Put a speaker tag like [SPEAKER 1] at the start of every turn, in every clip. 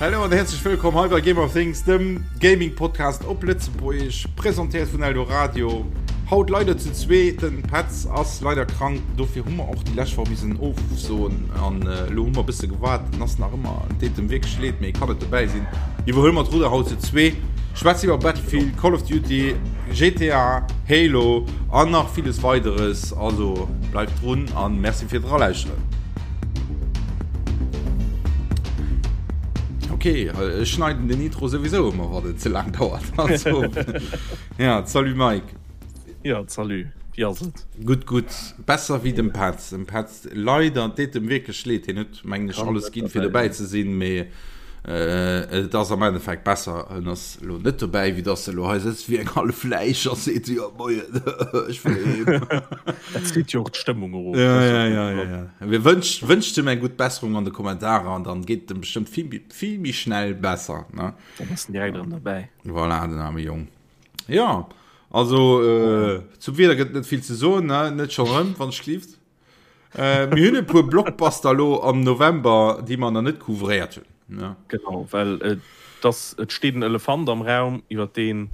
[SPEAKER 1] Hallo an herzlech wëllkomm hei bei Game of Things, dem Gaming Podcast op Lëtzebuergesch, presentéiert vun Eldoradio. Haut leider zu zwee, den Petz ass leider krank, dofir hu mer och déi lescht Woch missen ofsoen an elo hu mer e bësse gewaart, en ass nach ëmmer, et deet em wierklech leed, mee e kann net dobäi sinn. Iwwerhuele mer d'Rudder haut zu zwee, schwätze iwwer Battlefield, Call of Duty, GTA, Halo an nach villes weideres. Also bleift drun an Merci fir d'Eralauschteren. Ok, ech schneiden den Intro souwisou ëmmer wann et ze laang dauert. Also, ja, salut Mike.
[SPEAKER 2] Ja, salut. Wéi ass et?
[SPEAKER 1] Gutt, gutt. Besser wéi dem Petz. Dem Petz leider, et deet em wierklech leed. Hien huet, mengen ech, alles ginn, fir dobäi ze sinn, mee et ass am Endeffekt besser, en ass elo net dobäi, wéi dass e lo hei sëtzt wéi eng hallef Läich a seet, jo moien, ech wëll heem.
[SPEAKER 2] Dat zitt jo och d'Stëmmung erof.
[SPEAKER 1] Ja, ja, ja, ja, ja. Mir wënscht, wënscht em eng gutt Besserung an de Kommentarer an dann geet et em bestëmmt vill méi, vill méi schnell besser, ne?
[SPEAKER 2] Dann ass en direkt erëm dobäi.
[SPEAKER 1] Voilà, den aarme Jong. Ja, also äh, zum Wieder gëtt net vill ze soen, ne? Net schon rëm, wann ech gelift. Äh, mir hunn e puer Blockbuster lo am November, déi mer nach net couvréiert hunn.
[SPEAKER 2] Ne? Genau, well äh, das, et steet en Elefant am Raum, iwwer deen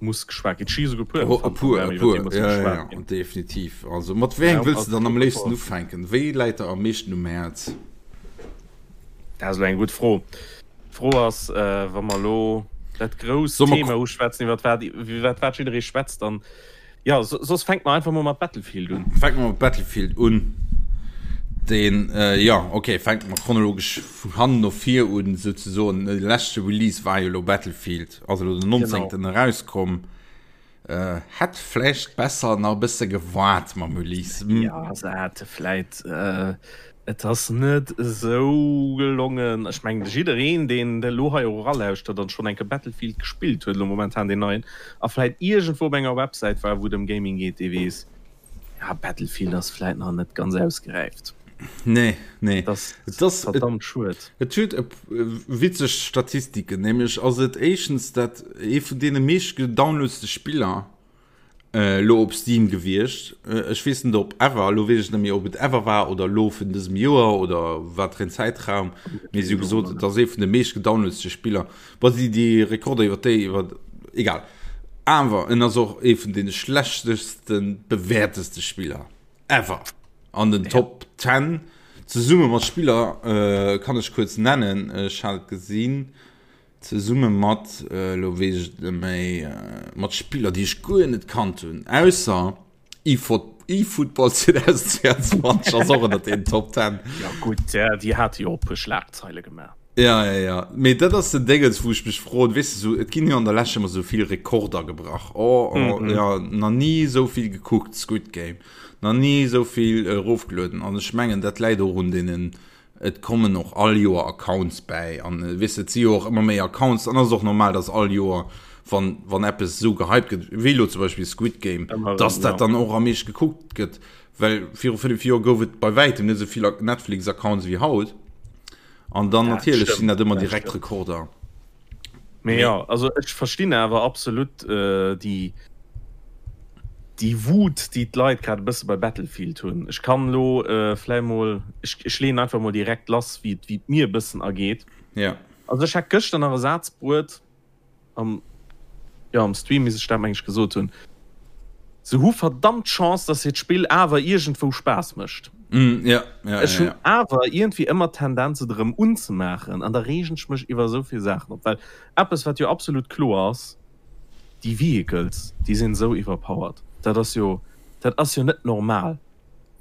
[SPEAKER 2] muss geschwat ginn. Et sti souguer puer
[SPEAKER 1] Oh, e
[SPEAKER 2] Elefanten am
[SPEAKER 1] puer,
[SPEAKER 2] Raum,
[SPEAKER 1] e
[SPEAKER 2] iwwer
[SPEAKER 1] puer.
[SPEAKER 2] dee muss
[SPEAKER 1] Ja, ja,
[SPEAKER 2] geschwat
[SPEAKER 1] ja,
[SPEAKER 2] ginn.
[SPEAKER 1] definitiv. Also mat wéi engem
[SPEAKER 2] Raum
[SPEAKER 1] wëlls
[SPEAKER 2] ass
[SPEAKER 1] du dann am léifsten
[SPEAKER 2] Blockbuster.
[SPEAKER 1] ufänken? Wéi läit der am meeschten um Häerz?
[SPEAKER 2] Dat ass elo eng gutt Fro. D'Fro ass, wa mer elo dat grousst
[SPEAKER 1] Soll mer
[SPEAKER 2] Thema uschwätzen, iwwer wat iwwer wat jidderee schwätzt, dann, jo, soss fänke mer einfach mol mat Battlefield un.
[SPEAKER 1] Fänke mer mat Battlefield un. Deen, jo, okay, fänke mer chronologesch vun hannen no vir un, souzesoen. De leschte Release war jo elo Battlefield, ass elo den 19. Erauskomm. Äh, hätt vläicht besser nach e bësse gewaart mam Release.
[SPEAKER 2] Hm. Ja, se hätte vläit, äh, et ass net esou gelongen. Ech mengen, jiddereen, deen elo hei och eralauschtert an schonn eng Kéier Battlefield gespillt huet, elo momentan deen neien, a vläit iergendwou op enger Websäit war, wou et ëm Gaming geet, dee weess, ja, Battlefield ass vläit nach net ganz ausgeräift.
[SPEAKER 1] Nee, nee.
[SPEAKER 2] Et ass verdammt schued.
[SPEAKER 1] Et huet e witzeg Statistiken, nämlech ass et éischtens dat ee vun deene meescht gedownloadste Spiller elo op Steam gewiescht. Ech weess net op ever, elo weess ech net méi ob et ever war oder elo vun dësem Joer oder wat fir en Zäitraum, mee si hu gesot et ass ee vun de meescht gedownloadste Spiller. Bon, déi déi Rekorder iwwer déi iwwer egal. Awer en ass och ee vun deene schlechteste bewäerteste Spiller. Ever an den Top 10 zesumme mat Spiller äh, kann ech kuerz nennen, ech hat et gesinn zesumme mat äh, lo weess ech net méi äh, mat Spiller déi ech guer net kannt hunn ausser eFootball 2022 ass och ënnert den Top 10.
[SPEAKER 2] Ja gutt, déi hate jo och e puer Schlagzeile gemaach.
[SPEAKER 1] Ja, ja, ja. Mee dat ass den Déngens, wou ech mech froen, weess de, sou, et ginn jo an der Lescht ëmmer sou vill Rekorder gebrach. Oh, oh, mm -hmm. ja, na ni sou vill gekuckt, Squid Game. Na ni sou vill erofgelueden. An ech mengen, dat läit och un deenen, et kommen och all Joer Accounts bäi. An äh, weess de, et si jo och ëmmer méi Accounts. An ass och normal, dass all Joer, wann, wann eppes sou gehypt gëtt, wéi lo zum Beispill Squid Game, Ëmmer dass dat ja. dann och am meescht gekuckt gëtt. Well viru 5 Joer gouf et bei wäitem net sou vill Netflix-Accounts wéi haut. An dann
[SPEAKER 2] Dat
[SPEAKER 1] natierlech sinn
[SPEAKER 2] stëmmt,
[SPEAKER 1] dat ëmmer
[SPEAKER 2] dat
[SPEAKER 1] direkt
[SPEAKER 2] stëmmt.
[SPEAKER 1] Rekorder.
[SPEAKER 2] Mee
[SPEAKER 1] Mee
[SPEAKER 2] jo, also ech verstinn awer absolut déi déi Wut, déi d'Leit grad e bësse bei Battlefield hunn. Ech kann elo vläi mol, ech ech leeën einfach mol direkt lass, wéi et wéi et mir e bëssen ergeet.
[SPEAKER 1] ja.
[SPEAKER 2] Also ech hat gëschter nach e Saz bruet, am jo am Stream misst ech dat meng ech gesot hunn, se hu verdammt Chance, dass hiert Spill awer iergendwou Spaass mécht.
[SPEAKER 1] Mm, ja, ja,
[SPEAKER 2] Ech
[SPEAKER 1] ja,
[SPEAKER 2] hunn
[SPEAKER 1] ja.
[SPEAKER 2] awer iergendwéi ëmmer d'Tendenz et erëm unzemaachen an da reegen ech mech iwwer esou vill Saachen op, well eppes wat jo absolut kloer ass, déi Vehicles déi sinn esou iwwerpowered, dat ass jo dat ass jo net normal.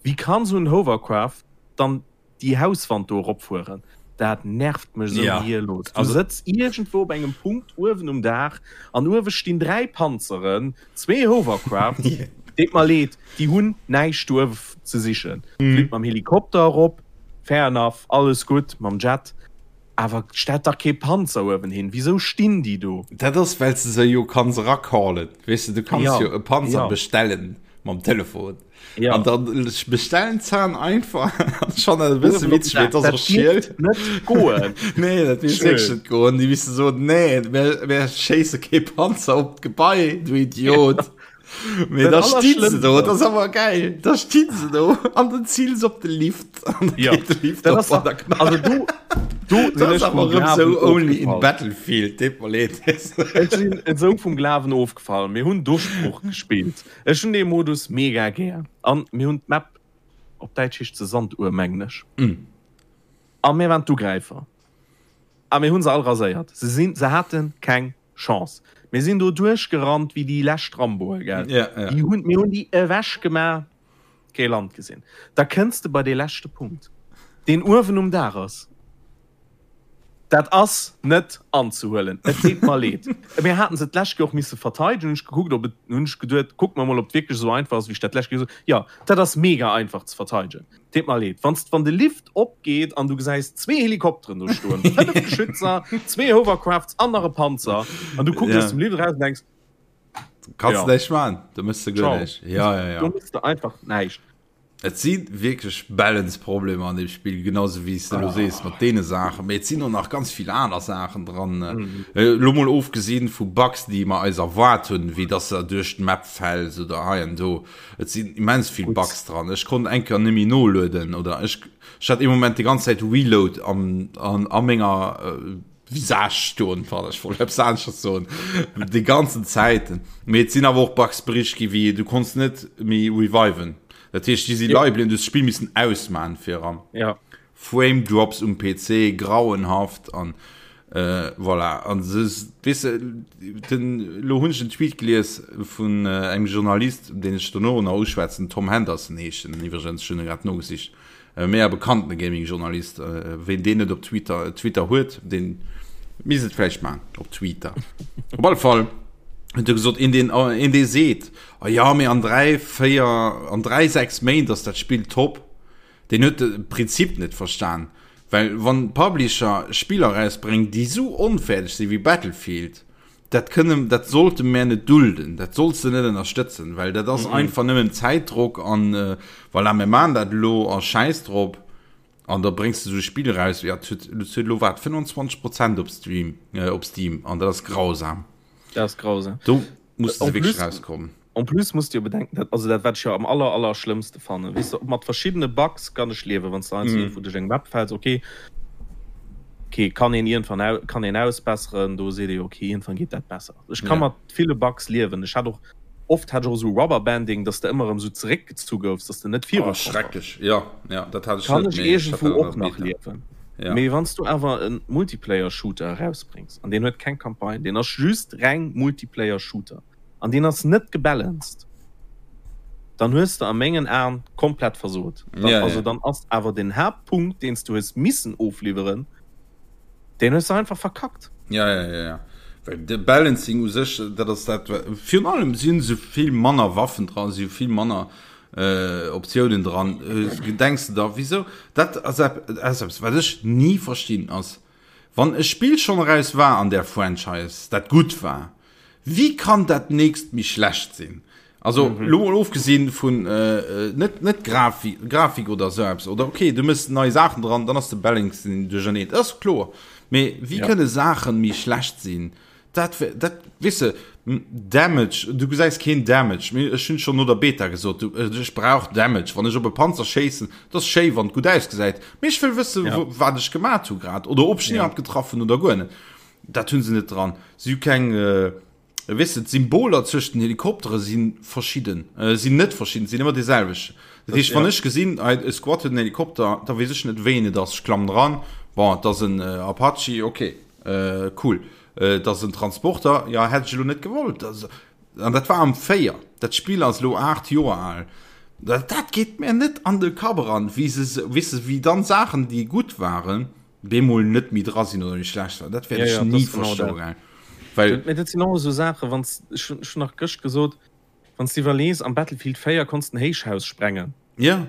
[SPEAKER 2] Wéi kann esou en Hovercraft dann déi Hauswand do eropfueren, dat nervt mech esou
[SPEAKER 1] Ja,
[SPEAKER 2] gehirlos. Du
[SPEAKER 1] also
[SPEAKER 2] sëtz iergendwou op engem Punkt uewen um Daach an uewe stinn 3 Panzeren, zwee Hovercrafts, deet mer leed, déi hunn näischt do uewe ze sichen. Flitt mam Helikopter erop, fair enough, alles gutt, mam Jet, awer stellt dach kee Panzer uewen hin. Wisou stinn déi do?
[SPEAKER 1] Dat ass, well s de se jo kanns eracallen, weess de, du kanns
[SPEAKER 2] Ja,
[SPEAKER 1] jo e Panzer
[SPEAKER 2] ja.
[SPEAKER 1] bestellen mam Telefon.
[SPEAKER 2] Ja.
[SPEAKER 1] An dann bestellen zahn einfach schon e bësse witzeg, mee et ass och schiel.
[SPEAKER 2] Net goen.
[SPEAKER 1] Nee, dat misst wierklech net goen. Déi misste soen, nee, mir, mir schéisse kee Panzer op d'Gebai, du Idiot. Mee da sti se do, dat ass awer geil. Da sti se do an den ziels op de Lift. An
[SPEAKER 2] ja. de Lift dat ass op, an also du,
[SPEAKER 1] du dat ass awer erëm sou only in Battlefield, deet mer leed.
[SPEAKER 2] Ech sinn esou vum Glawen ofgefall. Mir hunn Duerchbruch gespillt. Ech hunn dee Modus mega gär. An mir hunn d'Map, op Däitsch heescht se Sanduhr, mengen ech. Mm. A mir waren d'Ugräifer. A mir hunn se all raséiert. Se sinn, se hate keng Chance. Mir sinn do duerchgerannt wéi déi lescht Ramboe, gell?
[SPEAKER 1] Ja, ja.
[SPEAKER 2] Déi hunn, mir hunn déi ewech gemaach, kee Land gesinn. Da kënns de bei dee leschte Punkt, deen uewen um Daach ass. Dat ass net anzehuelen. Et deet mer leed. Mir haten se d'lescht Kéier och misse verteidegen. Hunn ech gekuckt, ob et, hunn ech geduet, kucke mer mol, ob et wierklech esou einfach ass, wéi ech dat d'lescht Kéier gesot hunn. Jo, dat ass mega einfach ze verteidegen. Deet mer leed. Wanns, wann de Lift opgeet an du gesäis zwee Helikopteren do stoen, 5 Geschützer, zwee Hovercrafts an nach e Panzer, an du kucks
[SPEAKER 1] Ja.
[SPEAKER 2] aus dem Lift eraus an denks,
[SPEAKER 1] Kanns
[SPEAKER 2] Ja.
[SPEAKER 1] näischt maachen, do mëss de guer
[SPEAKER 2] Ciao.
[SPEAKER 1] näischt. Ja, ja, ja.
[SPEAKER 2] Do mëss de einfach näischt.
[SPEAKER 1] Et si wierklech Balance-Problemer an deem Spill, genau sou wéi s de elo sees mat deene Saachen. Mee et sinn och nach ganz vill aner Saachen dran. Elo mol ofgesinn vu Bugs, déi mer eis erwaart hunn, wéi dass se duerch d'Map fäls oder hei an do. Et sinn immens vill Bugs dran. Ech konnt eng Kéier net méi nolueden oder ech ech hat ee Moment déi ganz Zäit Reload am an a menger Visage stoen, pardon, ech wollt eppes aneschters soen, déi ganzen Zäiten. Mee et sinn awer och Bugs bericht gi wéi du konns net méi reviven. Dat heescht, déi si leie bliwwen, du hues d'Spill missen ausmachen fir eran.
[SPEAKER 2] Ja.
[SPEAKER 1] Frame Drops um PC, grauenhaft an voilà. An se, weess de, den, lo hunn ech en Tweet gelies vun engem Journalist, deen ech dono nach uschwätzen, Tom Henderson heescht en iwwregens, ech hunn e grad nogesicht, e mega bekannte Gaming-Journalist, ween deen net op Twitter, Twitter huet, deen misst et vläicht maachen, op Twitter. Op alle Fall huet e gesot, een deen, een dee seet, oh ja, mee an 3, 4, an 3, 6 Méint ass dat Spill top, Deen huet de Prinzip net verstan, well wann Publisher Spiller erausbréngen déi sou onfäerdeg sinn wéi Battlefield, dat kënne, dat sollte mär net dulden, dat solls de net ënnerstëtzen, well dat ass einfach nëmmen Zäitdrock an voilà, mir maachen dat elo a schäiss drop an da bréngs de sou e Spill eraus, jo, et huet, et huet elo wat 25 Prozent op Stream, op Steam an dat ass grausam.
[SPEAKER 2] Dat ass grausam.
[SPEAKER 1] Do musse se wierklech rauskommen.
[SPEAKER 2] En plus muss de jo bedenken, dat, also dat wat ech jo am aller aller schlëmmste fannen, weess de, mat verschiddene Bugs kann ech liewen, wann s de heiansdo iergendwou duerch eng Map fäls, ok, ok, kann een iergendwann au, kann een ausbesseren, do seet ee jo, ok, iergendwann geet dat besser. Ech ka mat ville Bugs liewen. Ech hat och, oft hat ech och esou Rubberbanding, dass de ëmmer erëm esou zeréckgezu goufs, dass de net viru
[SPEAKER 1] Oh, schrecklech, jo, jo, dat hat ech
[SPEAKER 2] Kann
[SPEAKER 1] net,
[SPEAKER 2] ech
[SPEAKER 1] mee ech hat
[SPEAKER 2] iergendwou
[SPEAKER 1] dat an
[SPEAKER 2] och
[SPEAKER 1] der
[SPEAKER 2] nach
[SPEAKER 1] Beta.
[SPEAKER 2] liewen.
[SPEAKER 1] Ja.
[SPEAKER 2] Mee wann s du awer e Multiplayer-Shooter erausbréngs, an deen huet keng Campagne, deen ass just reng Multiplayer-Shooter, an deen ass net gebalanced, dann hues de a mengen Aen komplett versot. Dann,
[SPEAKER 1] Ja,
[SPEAKER 2] also
[SPEAKER 1] ja.
[SPEAKER 2] dann ass awer den Haaptpunkt, deen s du hues missen ofliwweren, deen hues de einfach verkackt.
[SPEAKER 1] Ja, ja, ja, ja. Well de Balancing u sech, dat ass dat, wa-, virun allem si sou vill manner Waffen dran, si vill manner äh, Optiounen dran. Äh, denks de da, wieso? Dat ass ep-, ass eppes, wat ech ni verstinn, ass, wann e Spill schonn eraus war an där Franchise, dat gutt war, Wéi kann dat nächst méi schlecht sinn? Also lo mol ofgesinn vun net net Grafik Grafik oder esou eppes oder okay du mëss nei Saachen dran, dann ass de Balancing duercherneen, dat ass kloer. Mee wéi kënne Saachen méi schlecht sinn? Dat dat weess de Damage, du gesäis keen Damage. Mee ech hunn schonn no der Beta gesot, du ech brauch Damage. Wann ech op e Panzer schéissen, dat ass schéi wann et gutt ausgesäit, mee ech wëll wësse wat ech gemat hu grad oder ob ech en iwwerhaapt getraff hunn oder guer net. Dat hunn se net dran. Si hu keng, weess de, d'Symboler zwëscht den Helikoptere si verschidden, sinn net verschidden, sinn ëmmer déi selwecht. Dat heescht, wann ech gesinn, hei e Squad huet en Helikopter, da weess ech net, wéi een et ass. Ech klammen eran, bon, et ass en Apache, ok, cool. Et ass en Transporter, jo, hätt ech elo net gewollt. An dat war am 4. Dat Spill ass elo 8 Joer al. Dat, dat geet mir net an de Kapp eran, wéi se, weess de, wéi dann Saachen, déi gutt waren, bemol net méi dra sinn oder méi schlecht war. Dat wäert
[SPEAKER 2] ja,
[SPEAKER 1] ech ni
[SPEAKER 2] ja, genau
[SPEAKER 1] verstoen. Well
[SPEAKER 2] dat, dat sinn och esou Saachen, wann ech hunn nach gëscht gesot, wann s de iwwerlees, am Battlefield 4 konns den Héichhaus sprengen.
[SPEAKER 1] Ja.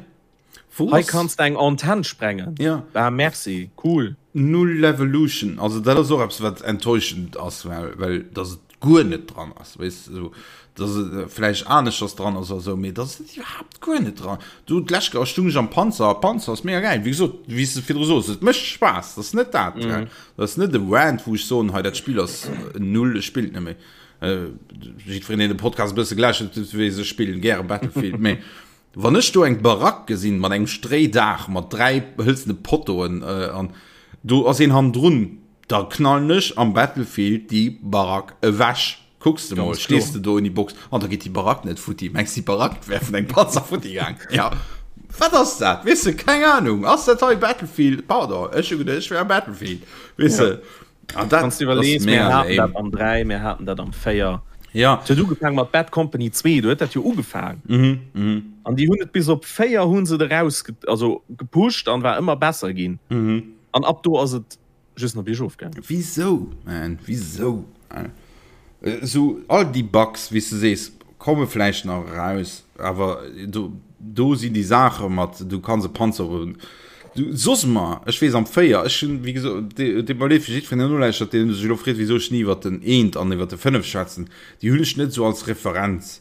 [SPEAKER 2] Wou Hei kanns de eng Antenn sprengen.
[SPEAKER 1] Ja.
[SPEAKER 2] Ah, merci, cool.
[SPEAKER 1] Null Levolution, also dat ass och eppes wat enttäuschend ass, well, well dass et guer net dran ass, weess de, esou, dass et vläicht aneschters dran ass oder esou, mee dass et iwwerhaapt guer net dran. Du, d'lescht Kéier stung ech am Panzer, Panzer ass mega gäil, wéi gesot, wéi s de virdru sos, et mécht Spaass, dat ass net dat, gell, dat ass net e Rant, wou ech soen, hei dat Spill ass null, ech spillen et net méi. Jiddwereen, deen de Podcast e bësse gelauschtert huet, weess, ech spillen gäre Battlefield, mee wann ech do eng Barack gesinn mat engem Stréidaach, mat 3 hëlzene Pottoen an do ass een hannendrun, da knallen ech am Battlefield déi Barack ewech. Kucks de mol, stees de do in die Box an da geet déi Barack net futti. Mengs déi Barack wär vun engem Panzer futti gaang? Ja. Wat ass dat? Weess de, keng Ahnung. Ass dat hei Battlefield? Pardon, ech hu geduecht, ech wär am Battlefield. Weess de?
[SPEAKER 2] An dat Wanns du iwwerlees, mir haten dat am 3, mir haten dat am 4.
[SPEAKER 1] Ja.
[SPEAKER 2] Et huet ugefaang mat Bad Company 2, do huet dat jo ugefaang.
[SPEAKER 1] Mhm, mhm.
[SPEAKER 2] An déi hunn et bis op 4 hu se et eraus, also gepusht an war ëmmer besser ginn.
[SPEAKER 1] Mhm.
[SPEAKER 2] An ab do ass et just nach biergof
[SPEAKER 1] gaangen. Wisou, man, wisou? Esou all déi Bugs, wéi s de sees, komme vläicht nach eraus, awer do, do sinn déi Saache mat, du kanns e Panzer op, du soss mer, ech weess am 4, ech hunn, wéi gesot, deet mer leed fir jiddwereen, deen nolauschtert, deen sech elo freet, wisou ech ni iwwert den eent an iwwert de 5 schwätzen, déi hunn ech net esou als Referenz,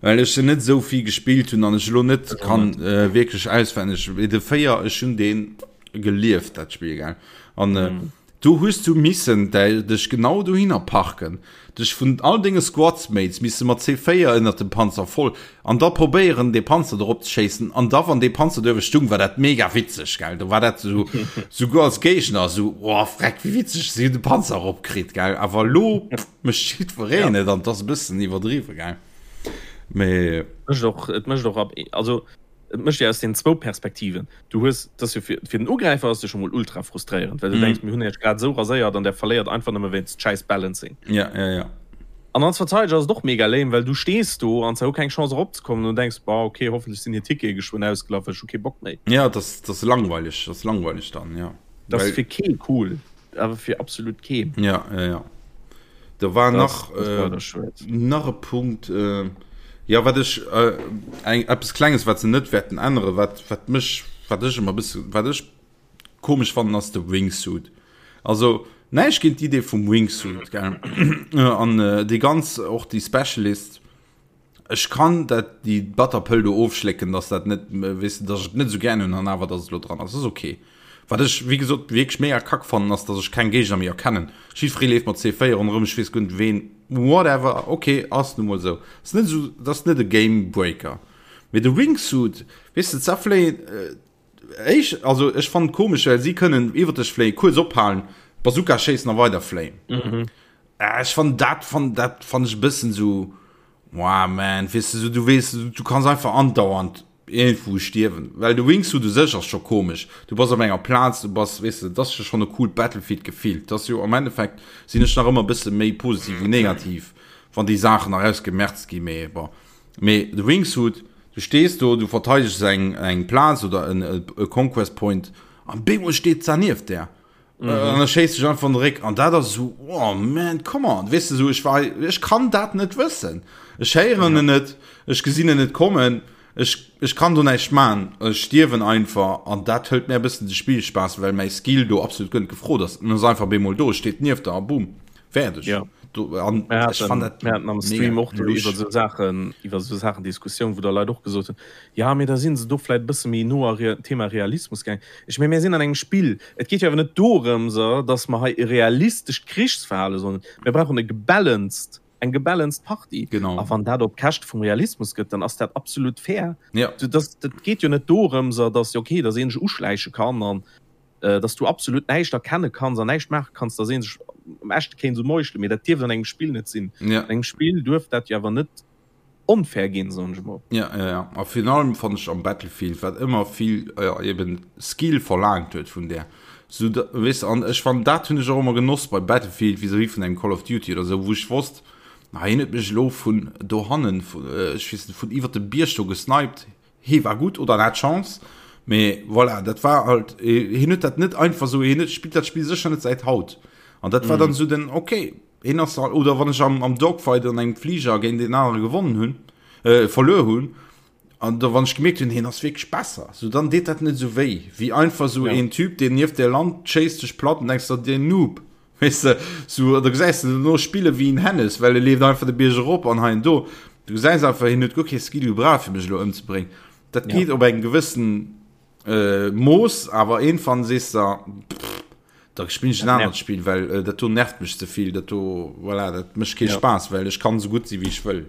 [SPEAKER 1] well ech se net esou vill gespillt hunn an ech elo net kann wierklech auswenneg, mee de 4, ech hunn deen gelieft, dat Spill, gell, an Do hues du missen dech genau dohinner parken, dech vun all denge Squadsmates misse mat C4 ënnert dem Panzer voll an da probéieren dee Panzer do rop ze schéissen an da wann dee Panzer do ewech stung war dat mega witzeg gell, do war dat sou souguer als Géigner sou oh freck wéi witzeg si hunn de Panzer erop kritt gell, awer elo mécht jiddwereen et an et ass e bëssen iwwerdriwwe gell, mee.
[SPEAKER 2] Mécht och, et mécht och ab, also Et mécht jo aus den zwou Perspektiven. Du hues, et ass jo fir, fir den Ugräifer ass et jo scho mol ultra frustréierend, well du denks, mir hunn iech grad esou raséiert an der verléiert einfach nëmme wéinst schäiss Balancing.
[SPEAKER 1] Ja, ja, ja.
[SPEAKER 2] An als Verteideger ass et och mega lame, well du stees do an se hu keng Chance eropzekommen an du denks, boah, okay, hoffentlech sinn hir Tickete geschwënn ausgelaf, well ech hu kee Bock méi.
[SPEAKER 1] Ja, et ass, et ass langweileg, et ass langweileg dann, ja.
[SPEAKER 2] Et ass fir kee cool. Awer fir absolut keen.
[SPEAKER 1] Ja, ja, ja. Da war das, nach, das war äh, nach e Punkt, äh, ja, wat ech, äh, eng, eppes Klenges, wat se net wäerten änneren, wat, wat mech, wat ech ëmmer bësse, wat ech komesch fannen, ass de Wingsuit. Also, näischt géint d'Idee vum Wingsuit, gell? An äh, déi ganz, och déi Specialist, Ech kann dat déi batter Pëll do ofschlécken, dass dat net, weess de, dass ech et net esou gären hunn an awer dass et elo dran ass, ass ok. Wat ech wéi gesot wierklech mega kack fannen ass, dass ech keng Géigner méi erkennen. Jiddweree leeft mat C4 ronderëm, ech weess guer net ween, whatever, ok, ass nu mol esou. Ass net esou, dat ass net e Game Breaker. Mee de Wingsuit, weess de, zerfléien, éisch, also ech fannen et komesch, well si kënnen iwwer dech fléien, kuerz ophalen, Bazooka schéissen a weider fléien. Ech fannen dat fan dat fan ech e bëssen sou wow man weess de sou du weess du kanns einfach andauernd iergendwou stierwen well de Wingsuit u sech ass scho komesch du bass op enger Plaz du bass weess de dat ass jo schonn e coolt Battlefield Gefill dat ass jo am Endeffekt sinn ech nach ëmmer e bësse méi positiv wéi negativ wann déi Saachen nach ausgemerzt gi mee bon mee de Wingsuit du stees do du verteidegs eng eng Plaz oder en e Conquest Point an bemol steet se nieft där Mhm. An da schéisst sech einfach an de Réck an dat ass so oh man come on weess de so ech war ech kann dat net wëssen ech héieren en net ech gesinn en net kommen ech ech kann do näischt man ech stierwen einfach an dat hëlt mir e bëssen de Spillspaass well mäi Skill do absolut guer net gefrot ass en ass einfach bemol do steet nieft der a boom fäerdeg
[SPEAKER 2] ja.
[SPEAKER 1] do an
[SPEAKER 2] Mir ech fann haten, dat mir haten am Stream mega och do lusch. iwwer sou Saachen iwwer sou Saachen Diskussioun wou da Leit och gesot hunn ja mee da sinn se do vläit e bësse méi no a Rea Thema Realismus gaang. Ech meng, mir sinn an engem Spill. Et geet jo awer net dorëms, datt mer hei e realistescht Krichsverhale sollen. Mir brauchen e gebalanced, eng gebalanced Partie.
[SPEAKER 1] Genau.
[SPEAKER 2] A wann dat op Käschte vum Realismus gëtt, dann ass dat absolut fair.
[SPEAKER 1] Ja.
[SPEAKER 2] Dat, dat geet jo net dorëms, datt, okay, datt een sech uschläiche kann an datt du absolut näischt erkenne kanns an näischt maache kanns, datt ee sech am Echte kéint esou meuchelen. Mee dat dierft an engem Spill net sinn.
[SPEAKER 1] Ja.
[SPEAKER 2] An engem Spill duerf dat jo awer net onfair ginn, soen ech
[SPEAKER 1] mol. Ja, ja, ja. A virun allem fannt ech am Battlefield, wat ëmmer vill ja, eben Skill verlaangt huet vun där. So, da, weess de, an ech fannen, dat hunn ech och ëmmer genoss bei Battlefield vis-à-vis vun engem Call of Duty oder sou, wou ech wosst, na, hien huet mech elo vun dohannen, vun, ech weess net, vun iwwert dem Bierg do gesniped, hee war gutt oder en hat Chance, mee voilà, dat war halt, hien huet dat net einfach sou, hien huet, spillt dat Spill sécher net säit haut. An dat war dann sou den, okay, Een ass al, oder wann ech am, am Dogfight an engem Fliger géint een anere gewonnen hunn, äh, verluer hunn, an da wann ech gemierkt hunn, hien ass wierklech besser, sou dann deet dat net sou wéi, wéi einfach sou
[SPEAKER 2] Ja.
[SPEAKER 1] een Typ, deen nieft där lant, schéisst dech platt an denks der, deen Noob, weess de, sou, da gesäis de dono spille wéi en Hennes, well e leeft einfach de Bierg erop an hei an do. Du gesäis einfach, hien huet guer kee Skill gebraucht, fir mech elo ëmzebréngen. Dat
[SPEAKER 2] Ja.
[SPEAKER 1] geet op engem gewëssen, äh, Mooss, awer iergendwann sees de, pff. Da spillen ech en anert Spill, well äh, dat do nervt mech ze vill, dat do, voilà, dat mécht kee ja. Spaass, well ech kann esou gutt si wéi ech wëll.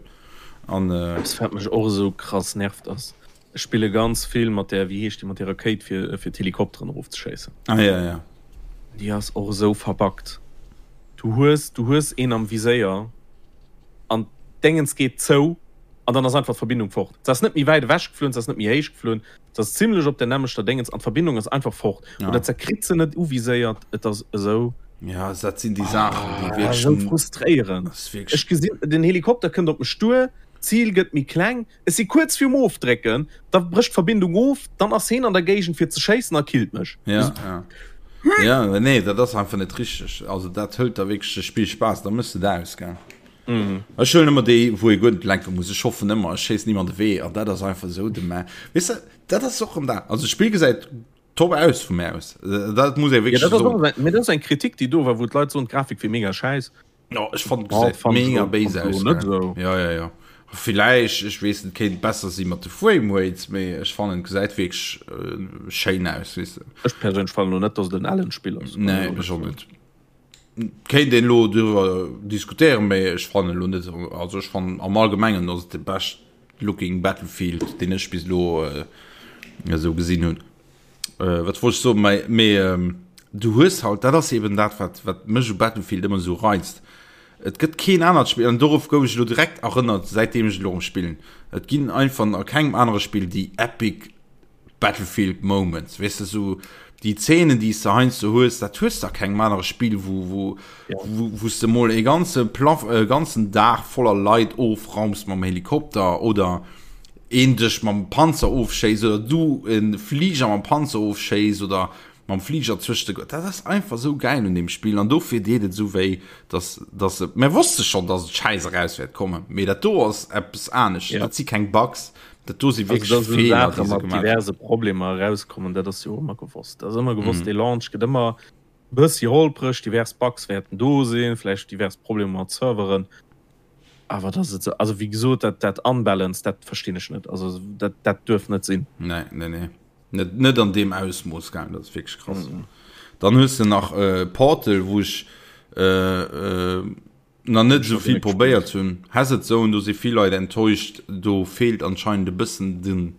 [SPEAKER 2] An äh, Eppes wat mech och esou krass nervt ass, ech spille ganz vill mat där, wéi heescht déi, mat där Rakéit fir fir d'Helikopteren erofzeschéissen.
[SPEAKER 1] Ah ja, ja.
[SPEAKER 2] Déi ass och esou verbuggt. Du hues, du hues een am Viséier an d'Déngens geet zou an dann ass einfach d'Verbindung fort. Se ass net méi wäit ewech geflunn, se ass net méi héich geflunn, Se ass zimlech op der nämmlechter Déngens an d'Verbindung ass einfach fort. Ja. Oder ze kritt se net uviséiert. Et ass esou.
[SPEAKER 1] Ja, dat sinn déi Saachen, déi
[SPEAKER 2] ah, wierklech. Esou frustréierend. Ech gesinn, den Helikopter kënnt op mech duer, d'Zil gëtt méi kleng, ech si kuerz virum Ofdrécken, da brécht d'Verbindung of, dann ass heen an der Géigend fir ze schéissen a killt mech.
[SPEAKER 1] Ja, ja. Ja, nee, dat ass einfach net richteg. Also dat hëlt der wierklech de Spillspaass, da mëss de dat aus, gell. Ech huelen ëmmer déi, wou ee guer net lenke muss. Ech hoffen ëmmer, ech schéissen nimm an de Wee an dat ass einfach esou de Mä. Weess de, dat ass och erëm dat. Also d'Spill gesäit top aus vu mär aus. Dat muss ee
[SPEAKER 2] wierklech soen. Ja, dat ass och, mee dat ass eng Kritik, déi do war, wou d'Leit soen, d'Grafik wier mega schäiss.
[SPEAKER 1] Jo, ech fannen, et gesäit mega béis aus. Net esou. Jo, jo, jo. Villäicht, ech weess net, kéint besser si mat de Frame Rates, mee ech fannen, et gesäit wierklech schéin aus, weess de.
[SPEAKER 2] Ech perséinlech fannen elo net, dass et en ellent Spill ass.
[SPEAKER 1] Nee, ech och net. Kéint een elo driwwer diskutéieren, mee ech fannen elo net, also ech fannen am Allgemengen ass et de best looking Battlefield deen ech bis elo esou gesinn hunn. Wat wollt ech soen, mee mee du hues halt, dat ass eben dat wat wat mech u Battlefield ëmmer esou reizt, et gëtt keen anert Spill, an dorof gouf ech elo direkt erënnert säitdeem ech elo erëm spillen, et ginn einfach a kengem anere Spill déi epic Battlefield Moments, weess de, sou déi Zeenen, déi s de heiansdo hues, dat hues de a kengem anere Spill, wou, wou, ja. wou, wou s de mol e ganze Plaf, e ganzen Dag voller Leit ofraums mam Helikopter oder een dech mam Panzer ofschéisst oder du e Fliger mam Panzer ofschéisst oder mam Fliger zwëscht de, dat ass einfach sou gäil un deem Spill an dofir deet et sou wéi, dass, dass et, mir wosste schonn, dass et schäiss eraus wäert kommen, mee dat do ass eppes anescht, ja. dat si keng Bugs, Dat do si
[SPEAKER 2] wierklech also, Feeler, déi se gemaach diverse Problemer erauskommen, dat ass jo ëmmer gewosst. Dat ass ëmmer gewosst, mm. dee Launch gëtt ëmmer bëssi holpreg, divers Bugs wäerten do sinn, vläicht divers Problemer mat Serveren. Awer dat et also wéi gesot, dat dat unbalanced, dat verstinn ech net. Also dat dat duerf net sinn.
[SPEAKER 1] Nee, nee, nee. Net, net an deem Ausmooss gaang, dat ass wierklech krass. Mm. Dann hues de nach äh, Portal, wou ech äh, äh, nach net esou vill probéiert hunn. Hazard Zone, do si vill Leit enttäuscht, do feelt anscheinend e bëssen den,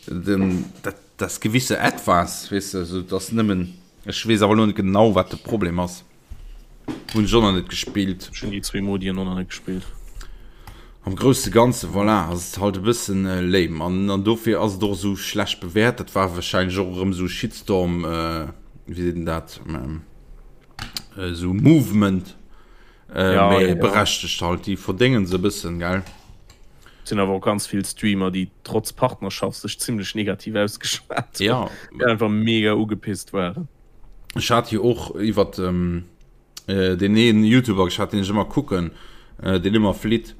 [SPEAKER 1] den, dat, das gewisse Etwas, weess de, also dass nëmmen, ech weess awer elo net genau wat de Problem ass, hunn ech och nach net gespillt.
[SPEAKER 2] Ech hunn déi zwee Modien och nach net gespillt.
[SPEAKER 1] Am grousse Ganze, voilà, ass et halt e bëssen lame an, an dofir ass et och esou schlecht bewäert. Dat war wahrscheinlech och erëm esou Shitstorm, wéi seet een dat, esou Movement äh, ja, ja, ja. berechtegt halt déi verdéngen se bëssen gell.
[SPEAKER 2] Sinn awer och ganz vill Streamer, déi trotz Partnerschaft sech zimmlech negativ ausgeschwat
[SPEAKER 1] ja.
[SPEAKER 2] déi einfach mega ugepisst waren.
[SPEAKER 1] Ech hat jo och iwwer ähm, äh, den een YouTuber geschat, den ech ëmmer kucken, äh, den ëmmer flitt.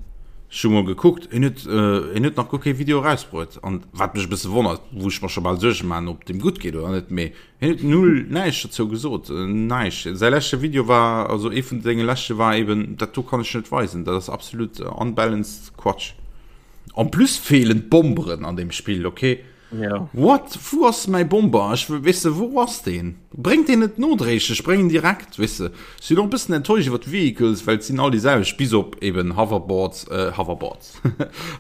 [SPEAKER 1] Ech hu mol gekuckt, en huet, äh, en huet nach guer kee Video erausbruet. An wat mech e bësse wonnert, wou ech mer scho bal Suerge man, ob dem gutt geet oder net, mee Hien huet null näischt dozou gesot, näischt. Säi leschte Video war, also ee vun senge leschte war eben, dat do kann ech net weisen, dat ass absolut unbalanced Quatsch. En plus feelen d'Bomberen an deem Spill, ok?
[SPEAKER 2] Ja.
[SPEAKER 1] What? Wou ass mäi Bomber? Ech wëll, weess de, wou ass deen? Bréngt deen net nodréiglech, bréng en direkt, weess de. Ech sinn och e bëssen enttäuscht iwwer d'Vehicles, well et sinn all déi selwecht, bis op eben Hoverboards, Hoverboards,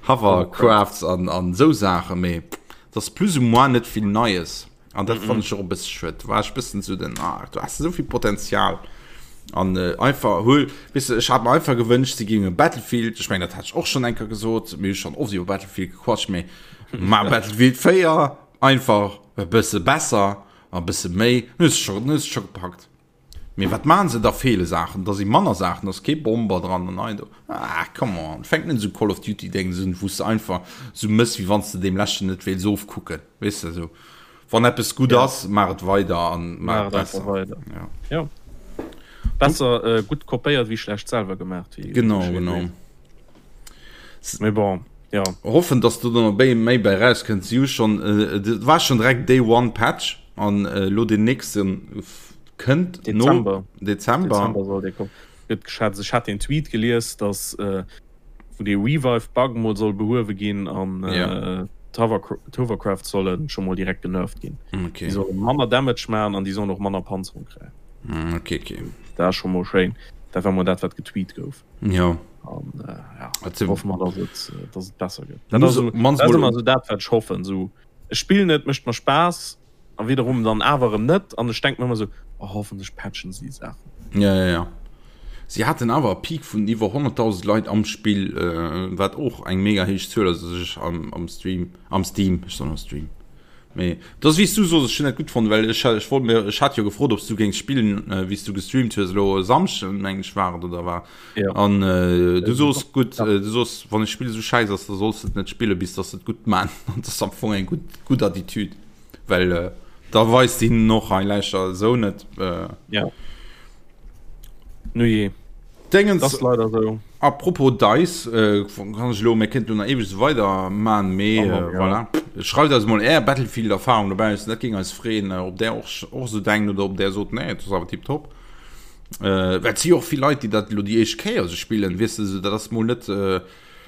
[SPEAKER 1] Hovercrafts an, an esou Saachen, mee et ass plus ou moins net vill Neies. An dat fand ech och e bësse schued. War ech bëssen zu den, ah, du hast esou vill Potenzial. An äh, einfach huel, weißt du, ech hat mir einfach gewënscht, sie géinge Battlefield, ech meng, dat hat ech och schon enker gesot, mir hu schon oft iwwer Battlefield gequatscht, mee ma Battlefield 4 einfach e bësse besser, a bësse méi, dann hues du schon, dann hues du schon gepackt. Mee wat maan se? Da feele Saachen, da si manner Saachen, da ass kee Bomber dran an hei do. Ah, come on, fänk net esou Call of Duty Déngs un, wou s de einfach esou mëss, wéi wann s de deem leschten net wéils ofkucken, weess de esou. Wann eppes gutt ass, maach et weider an maach et besser.
[SPEAKER 2] Weider. Ja. Ja. Besser äh, gutt kopéiert wéi schlecht selwer gemaach.
[SPEAKER 1] Wéi genau, genau.
[SPEAKER 2] Mee bon,
[SPEAKER 1] ja. Hoffen, dass do dann méi méi bei rauskënnt. Si hu schon, äh, dat war schon direkt Day One Patch an äh, lo den nächsten kënnt
[SPEAKER 2] Dezember.
[SPEAKER 1] No Dezember.
[SPEAKER 2] Dezember soll dee kommen. Gëtt geschätzt. Ech hat den Tweet gelies, dass äh, wou dee Revive Bug mol soll behuewe ginn an äh,
[SPEAKER 1] ja.
[SPEAKER 2] d'Hovercraft solle scho mol direkt genervt ginn.
[SPEAKER 1] Okay.
[SPEAKER 2] Déi solle manner Damage maachen an déi sollen och manner Panzerung kréien.
[SPEAKER 1] Mm, okay, okay.
[SPEAKER 2] Dat ass scho mol schéin. Dat war mol dat, wat getweet gouf.
[SPEAKER 1] Ja.
[SPEAKER 2] An äh, ja, also, hoffe mer, dass et, äh, dass et besser gëtt. Dat ass so, dat ass ëmmer so dat, wat ech hoffen. So, ech spillen et, mécht mer Spaass a wiederum dann awer erëm net. An ech denk mir ëmmer so, oh, hoffentlech patchen si déi Saachen.
[SPEAKER 1] Ja, ja, ja. Si haten awer e Peak vun iwwer 100.000 Leit am Spill, äh, wat och eng mega héich Zuel ass, also ech am, am Stream, am Steam, ech soen am Stream. Mee et ass wéi s du sos, ech hunn dat gutt fonnt, well ech ech wollt mir ech hat jo gefrot, ob s du géings spillen, wéi s du gestreamt hues elo e Samschden, meng ech war et oder war.
[SPEAKER 2] Ja.
[SPEAKER 1] An äh, du sos gutt, äh, du sos wann e Spill esou schäiss ass, da solls de et net spille bis datt se et gutt man. An dat ass am Fong eng gutt gutt Attitüd, well äh, da weist de hinnen och hei läischer esou net. Äh,
[SPEAKER 2] Ja. Nujee.
[SPEAKER 1] Dingens,
[SPEAKER 2] Das leider so.
[SPEAKER 1] Apropos Dice, äh, kann ech elo, mir kéinten elo nach eweg esou weider man, mee
[SPEAKER 2] Oh,
[SPEAKER 1] äh,
[SPEAKER 2] ja.
[SPEAKER 1] voilà. Schreift eis mol är Battlefield-Erfahrung dobaussen, dat géing eis freeën, äh, ob där och, och esou denkt oder ob där sot, nee, et ass awer tiptop. Äh, well et si jo och vill Leit, déi dat elo déi éischt Kéier esou spillen, weess de, esou dat ass mol net äh,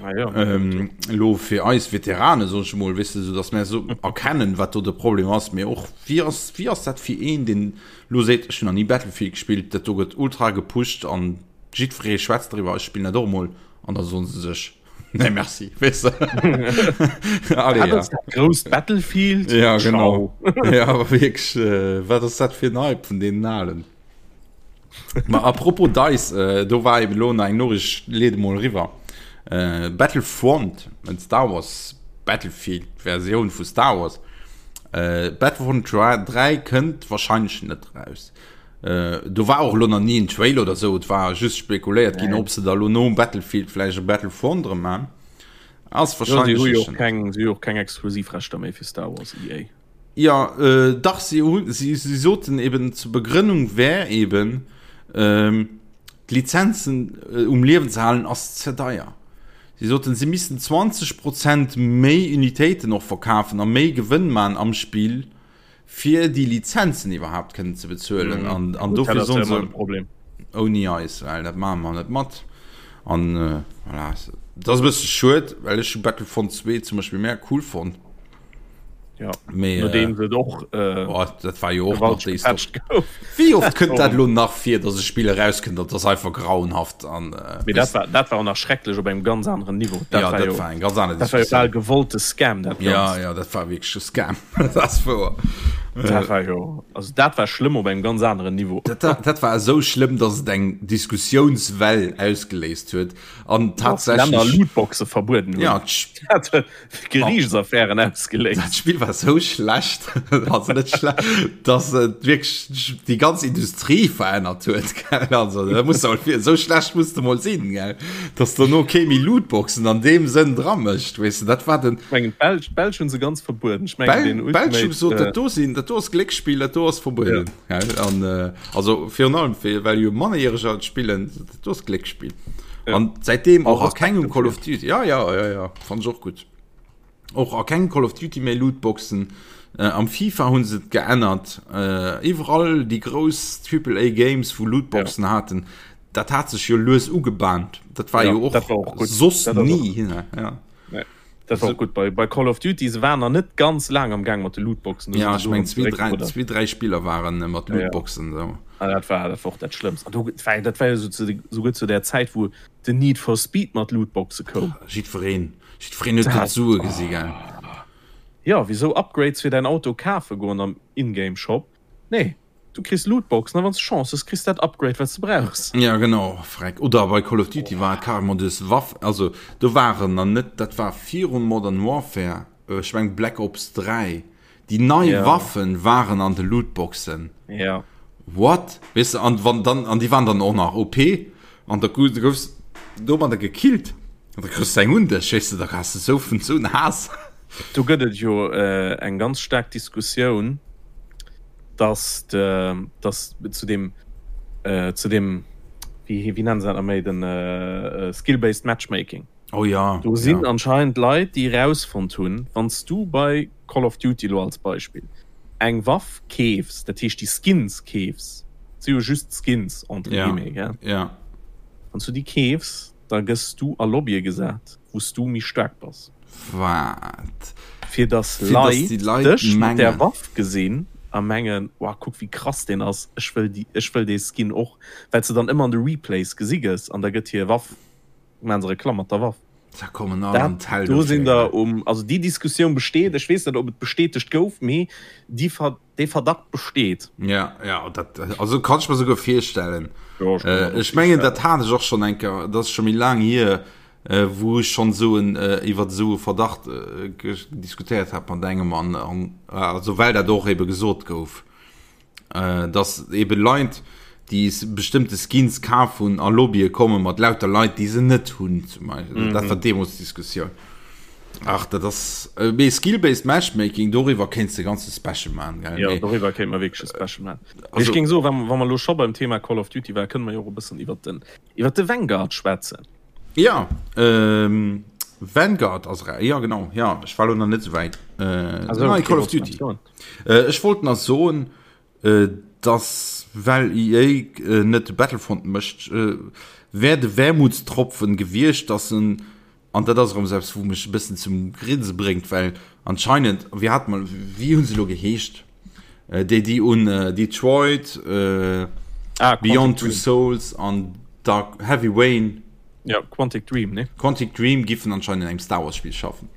[SPEAKER 2] Ah, ja.
[SPEAKER 1] ähm, elo fir eis Veterane, soen ech mol, weess de, esou datt mär esou erkennen, wat do de Problem ass, mee och wéi ass, wéi ass dat fir een, deen Lo seet, ech hunn nach ni Battlefield gespillt, dat do gëtt ultra gepusht an jiddweree schwätzt driwwer, ech spillen dat och emol an da soen se sech, nee merci, weess de.
[SPEAKER 2] Allez, ja. Dat grousst Battlefield?
[SPEAKER 1] Ja, genau. Ja, awer wierklech, äh, wat ass dat fir en Hype vun deenen Alen? Ma apropos DICE, äh, do war eben elo nach eng Noriicht, ech leede mol eriwwer. Äh, Battlefront, en Star Wars Battlefield Versioun vu Star Wars, Battlefront 3 kënnt wahrscheinlech net raus. Do war och elo nach ni en Trailer oder sou, et war just spekuléiert ginn, ob se da lo nom Battlefield vläicht e Battlefront erëm man. Ass
[SPEAKER 2] wahrscheinlech. Si hu jo och keng, si hu jo och keng Exklusivrechter méi fir Star Wars, EA.
[SPEAKER 1] Jo, dach, si hunn, si soten eben zur Begrënnung wär eben, d'Lizenzen um Liewen ze halen ass ze deier. Si soten, si missten 20 Prozent méi Unitéiten och verkafen a méi Gewënn man am Spill, fir déi Lizenzen iwwerhaapt kënnen ze bezuelen. An, an dofir soen se, ouni eis, well dat maache mer net mat. An voilà, dat ass e bësse schued, well ech hu Battlefront 2 zum Beispill mega cool fonnt.
[SPEAKER 2] Ja, Mee, nodeem äh, och
[SPEAKER 1] äh, oh, dat war jo och nach déi Wéi oft kënnt dat lo nach fir, datt e Spill erauskënnt, dat ass einfach grauenhaft an
[SPEAKER 2] äh, Mee dat war, dat war och nach schrecklech op engem ganz aneren Niveau.
[SPEAKER 1] Dat ja, war dat jo, war eng ganz aner
[SPEAKER 2] dat war jo bal gewollte Scam
[SPEAKER 1] dat Ja, ja, dat war wierklech e Scam. dat ass wouer.
[SPEAKER 2] Dat war jo, also dat war schlëmm op engem ganz aneren Niveau.
[SPEAKER 1] Dat, dat, dat war esou schlëmm, datt et eng Diskussiounswell ausgeléist huet an tatsächlech
[SPEAKER 2] Länner Lootboxe verbueden
[SPEAKER 1] hunn. Ja,
[SPEAKER 2] Geriichtsaffären ausgeléist.
[SPEAKER 1] Dat Spill war sou schlecht, also net schlecht, dass et wierklech déi ganz Industrie verännert huet. Gell? Also, da muss mol fir, sou schlecht muss de mol sinn, gell? Dass dono kee méi Lootboxen an deem Sënn dra mécht, weess de, dat war den.
[SPEAKER 2] Ech mengen, d'Belsch, d'Belsch hunn se ganz verbueden.
[SPEAKER 1] Ech mengen, den Ultimate. D'Belsch hu gesot, dat do sinn, dat do ass Glécksspill, dat do ass verbueden. Ja. Gell? An, äh, also virun allem, fir, well jo Mannerjäreger et spillen, dat do ass Glécksspill. Ja. An säitdeem och a kengem Call of Duty. Ja, ja, ja, ja. Fand ech och gutt. Och a kengem Call of Duty méi Lootboxen. Äh, am FIFA hunn se et geännert. Äh, iwwerall déi grouss Triple A Games, wou Lootboxen ja. haten, dat hat sech jo lues ugebahnt. Dat war ja, jo och,
[SPEAKER 2] dat war och
[SPEAKER 1] gut. soss
[SPEAKER 2] dat
[SPEAKER 1] nie. Och. Ja.
[SPEAKER 2] Nee. Dat war och gut bei, bei Call of Duty se waren nach net ganz laang am Gang mat de Lootboxen.
[SPEAKER 1] Ja, ech meng zwee, drei, zwee, drei Spiller waren äh, mat Lootboxen. Ja, ja.
[SPEAKER 2] So. Ah, dat war dat war och dat Schlëmmst. An do, dat war, dat war jo so zu, souguer zu der Zäit, wou den Need for Speed mat Lootboxe koum.
[SPEAKER 1] Jiddwereen, jiddwereen huet do d'Sue gesi, gell?
[SPEAKER 2] Ja, wisou Upgrades fir däin Auto kafe goen am Ingame Shop? Nee, du kriss Lootboxen a wann s de Chance hues, kriss dat Upgrade wat s de brauchs.
[SPEAKER 1] Ja genau, freck. Oder bei Call of Duty war et carrément du hues Waff, also do waren nach net, dat war virun Modern Warfare, ech meng Black Ops 3, déi nei
[SPEAKER 2] Ja.
[SPEAKER 1] Waffen waren an de Lootboxen.
[SPEAKER 2] Ja.
[SPEAKER 1] What? Weess de, an wann dann, an déi waren dann och nach OP an da goufs domadder gekillt an da kriss de eng un dech, weess de, da has de sou vun sou en Haass.
[SPEAKER 2] Do gëtt et jo eng ganz staark Diskussioun, dass de, dass zu deem, zu deem, wéi, wéi nennen se dat nach méi, den Skill-based Matchmaking.
[SPEAKER 1] Oh ja,
[SPEAKER 2] Do sinn
[SPEAKER 1] ja.
[SPEAKER 2] anscheinend Leit, déi erausfonnt hunn, wann s du bei Call of Duty elo als Beispill eng Waff keefs, dat heescht déi Skins keefs, et si jo just Skins entre
[SPEAKER 1] Ja,
[SPEAKER 2] guillemets, gell,
[SPEAKER 1] ja.
[SPEAKER 2] wann s du déi keefs, da gëss du a Lobbye gesat, wou s du méi staark bass.
[SPEAKER 1] Wat?
[SPEAKER 2] Fir dass
[SPEAKER 1] Fir dass
[SPEAKER 2] Leit
[SPEAKER 1] déi Leit
[SPEAKER 2] dech mat där
[SPEAKER 1] mengen.
[SPEAKER 2] Waff gesinn. a mengen, Wow, kuck wéi krass deen ass, ech wëll déi, ech wëll dee Skin och, well s de dann ëmmer an de Replays gesi gëss an da gëtt hir Waff, maachen se Reklamm mat der Waff.
[SPEAKER 1] Da kommen all an
[SPEAKER 2] Dat,
[SPEAKER 1] d'Hell
[SPEAKER 2] do
[SPEAKER 1] dofir,
[SPEAKER 2] sinn
[SPEAKER 1] gell.
[SPEAKER 2] der um, also déi Diskussioun besteet, ech weess net, ob et bestätegt gouf, mee déi Ver, dee Verdacht besteet.
[SPEAKER 1] Ja, ja, dat, also kann ech mer souguer virstellen.
[SPEAKER 2] Jo, ech kann mer
[SPEAKER 1] Äh,
[SPEAKER 2] dat och
[SPEAKER 1] ech mengen, dat
[SPEAKER 2] virstellen.
[SPEAKER 1] hat ech och schonn eng Kéier, dat ass scho méi laang hier, äh, wou ech schonn esou en, äh, iwwer esou e Verdacht äh, diskutéiert hat mat engem an, an also well dat och ebe gesot gouf. Dass ebe Leit, déi bestëmmte Skins kaf hunn, a Lobbye komme mat lauter Leit, déi se net hunn zum Beispill. Dat war deemools d'Diskussioun. Ach, dat ass, mee Skill-based Matchmaking, doriwwer kéints de e ganze Special maachen, gell?
[SPEAKER 2] Jo, doriwwer kéinte mer wierklech e Special maachen. Mee ech géing soen, wa mer elo scho beim Thema Call of Duty waren, kënne mer jo och e bëssen iwwert den, iwwert de Vanguard schwätzen.
[SPEAKER 1] Jo, Vanguard ass era, jo genau, jo, ech war elo nach net esou wäit. Nei Call of Duty. Ech wollt nach soen, dass well EA net de Battlefront mécht, wär de Wermutstropfen gewiescht, dass en, an dat ass erëm esou eppes wou mech e bëssen zum Grinse bréngt, well anscheinend, wéi hat mer, wéi hu se elo geheescht, déi déi un Detroit, Beyond Two Souls an Dark, Heavy Rain,
[SPEAKER 2] Ja, Quantic Dream, ne?
[SPEAKER 1] Quantic Dream giffen anscheinend an engem Star Wars Spiel schaffen.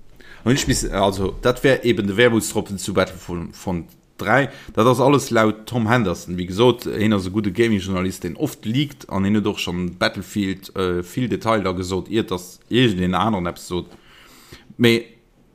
[SPEAKER 1] An ech miss, also dat wär eben de Wermutstropfen zu Battlefront 3. Dat ass alles laut Tom Henderson. Wéi gesot, hien ass e gudde Gaming-Journalist, deen oft leakt an hien huet och schonn Battlefield vill Detailer gesot, iert dass iergendeen aneren eppes sot. Mee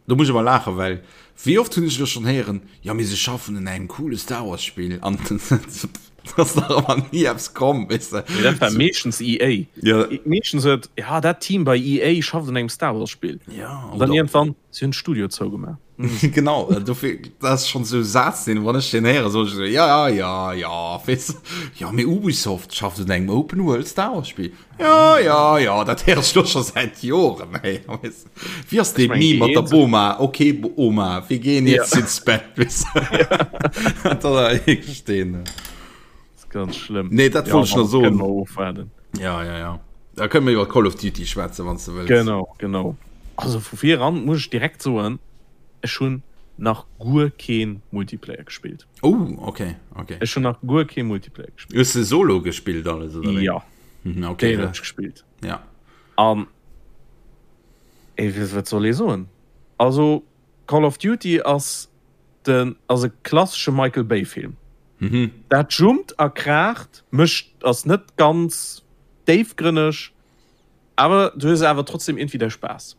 [SPEAKER 1] Do muss ech awer laachen, well wéi oft hunn ech elo schonn héieren, jo mee se schaffen un engem coole Star Wars Spill an et ass nach ëmmer ni eppes komm, weess de.
[SPEAKER 2] Mee dat war meeschtens EA.
[SPEAKER 1] Ja.
[SPEAKER 2] Meeschtens huet, ja dat Team bei EA schafft un engem Star Wars Spill.
[SPEAKER 1] Ja,
[SPEAKER 2] An dann iergendwann, si hunn d'Studio zougemaach.
[SPEAKER 1] Genau, dofir, dat ass schonn esou e Saz, deen, wann ech deen héieren, soen ech esou, ja, ja, ja, weess de, jo mee Ubisoft schafft un engem Open World Star Wars Spill. Ja, ja, ja, dat héiere ech elo scho säit Joren, ey, weess de. Wie ass dee Meme mat der Boma? Ok Oma, wir gehen jetzt ja. ins Bett.
[SPEAKER 2] Ganz schlimm.
[SPEAKER 1] Nee, dat ja, wollt ich noch so. Ja, ja, ja. Da können wir iwwer Call of Duty schwätzen, wann du
[SPEAKER 2] willst. Genau, genau. Also vu vir an muss ich direkt soen, ech hunn nach guer keen Multiplayer gespielt.
[SPEAKER 1] Oh, okay, okay.
[SPEAKER 2] Ech hunn nach guer keen Multiplayer
[SPEAKER 1] gespielt. Hues du Solo gespielt alles
[SPEAKER 2] oder? Ja.
[SPEAKER 1] Mhm, okay.
[SPEAKER 2] Den ich gespielt.
[SPEAKER 1] Ja.
[SPEAKER 2] An Ey, wat soll ee soen? Also Call of Duty ass den ass e klassesche Michael Bay Film.
[SPEAKER 1] Mhm.
[SPEAKER 2] Dat jumpt a kraacht, mécht ass net ganz déifgrënneg, awer du hues awer trotzdem iergendwéi däi Spaass.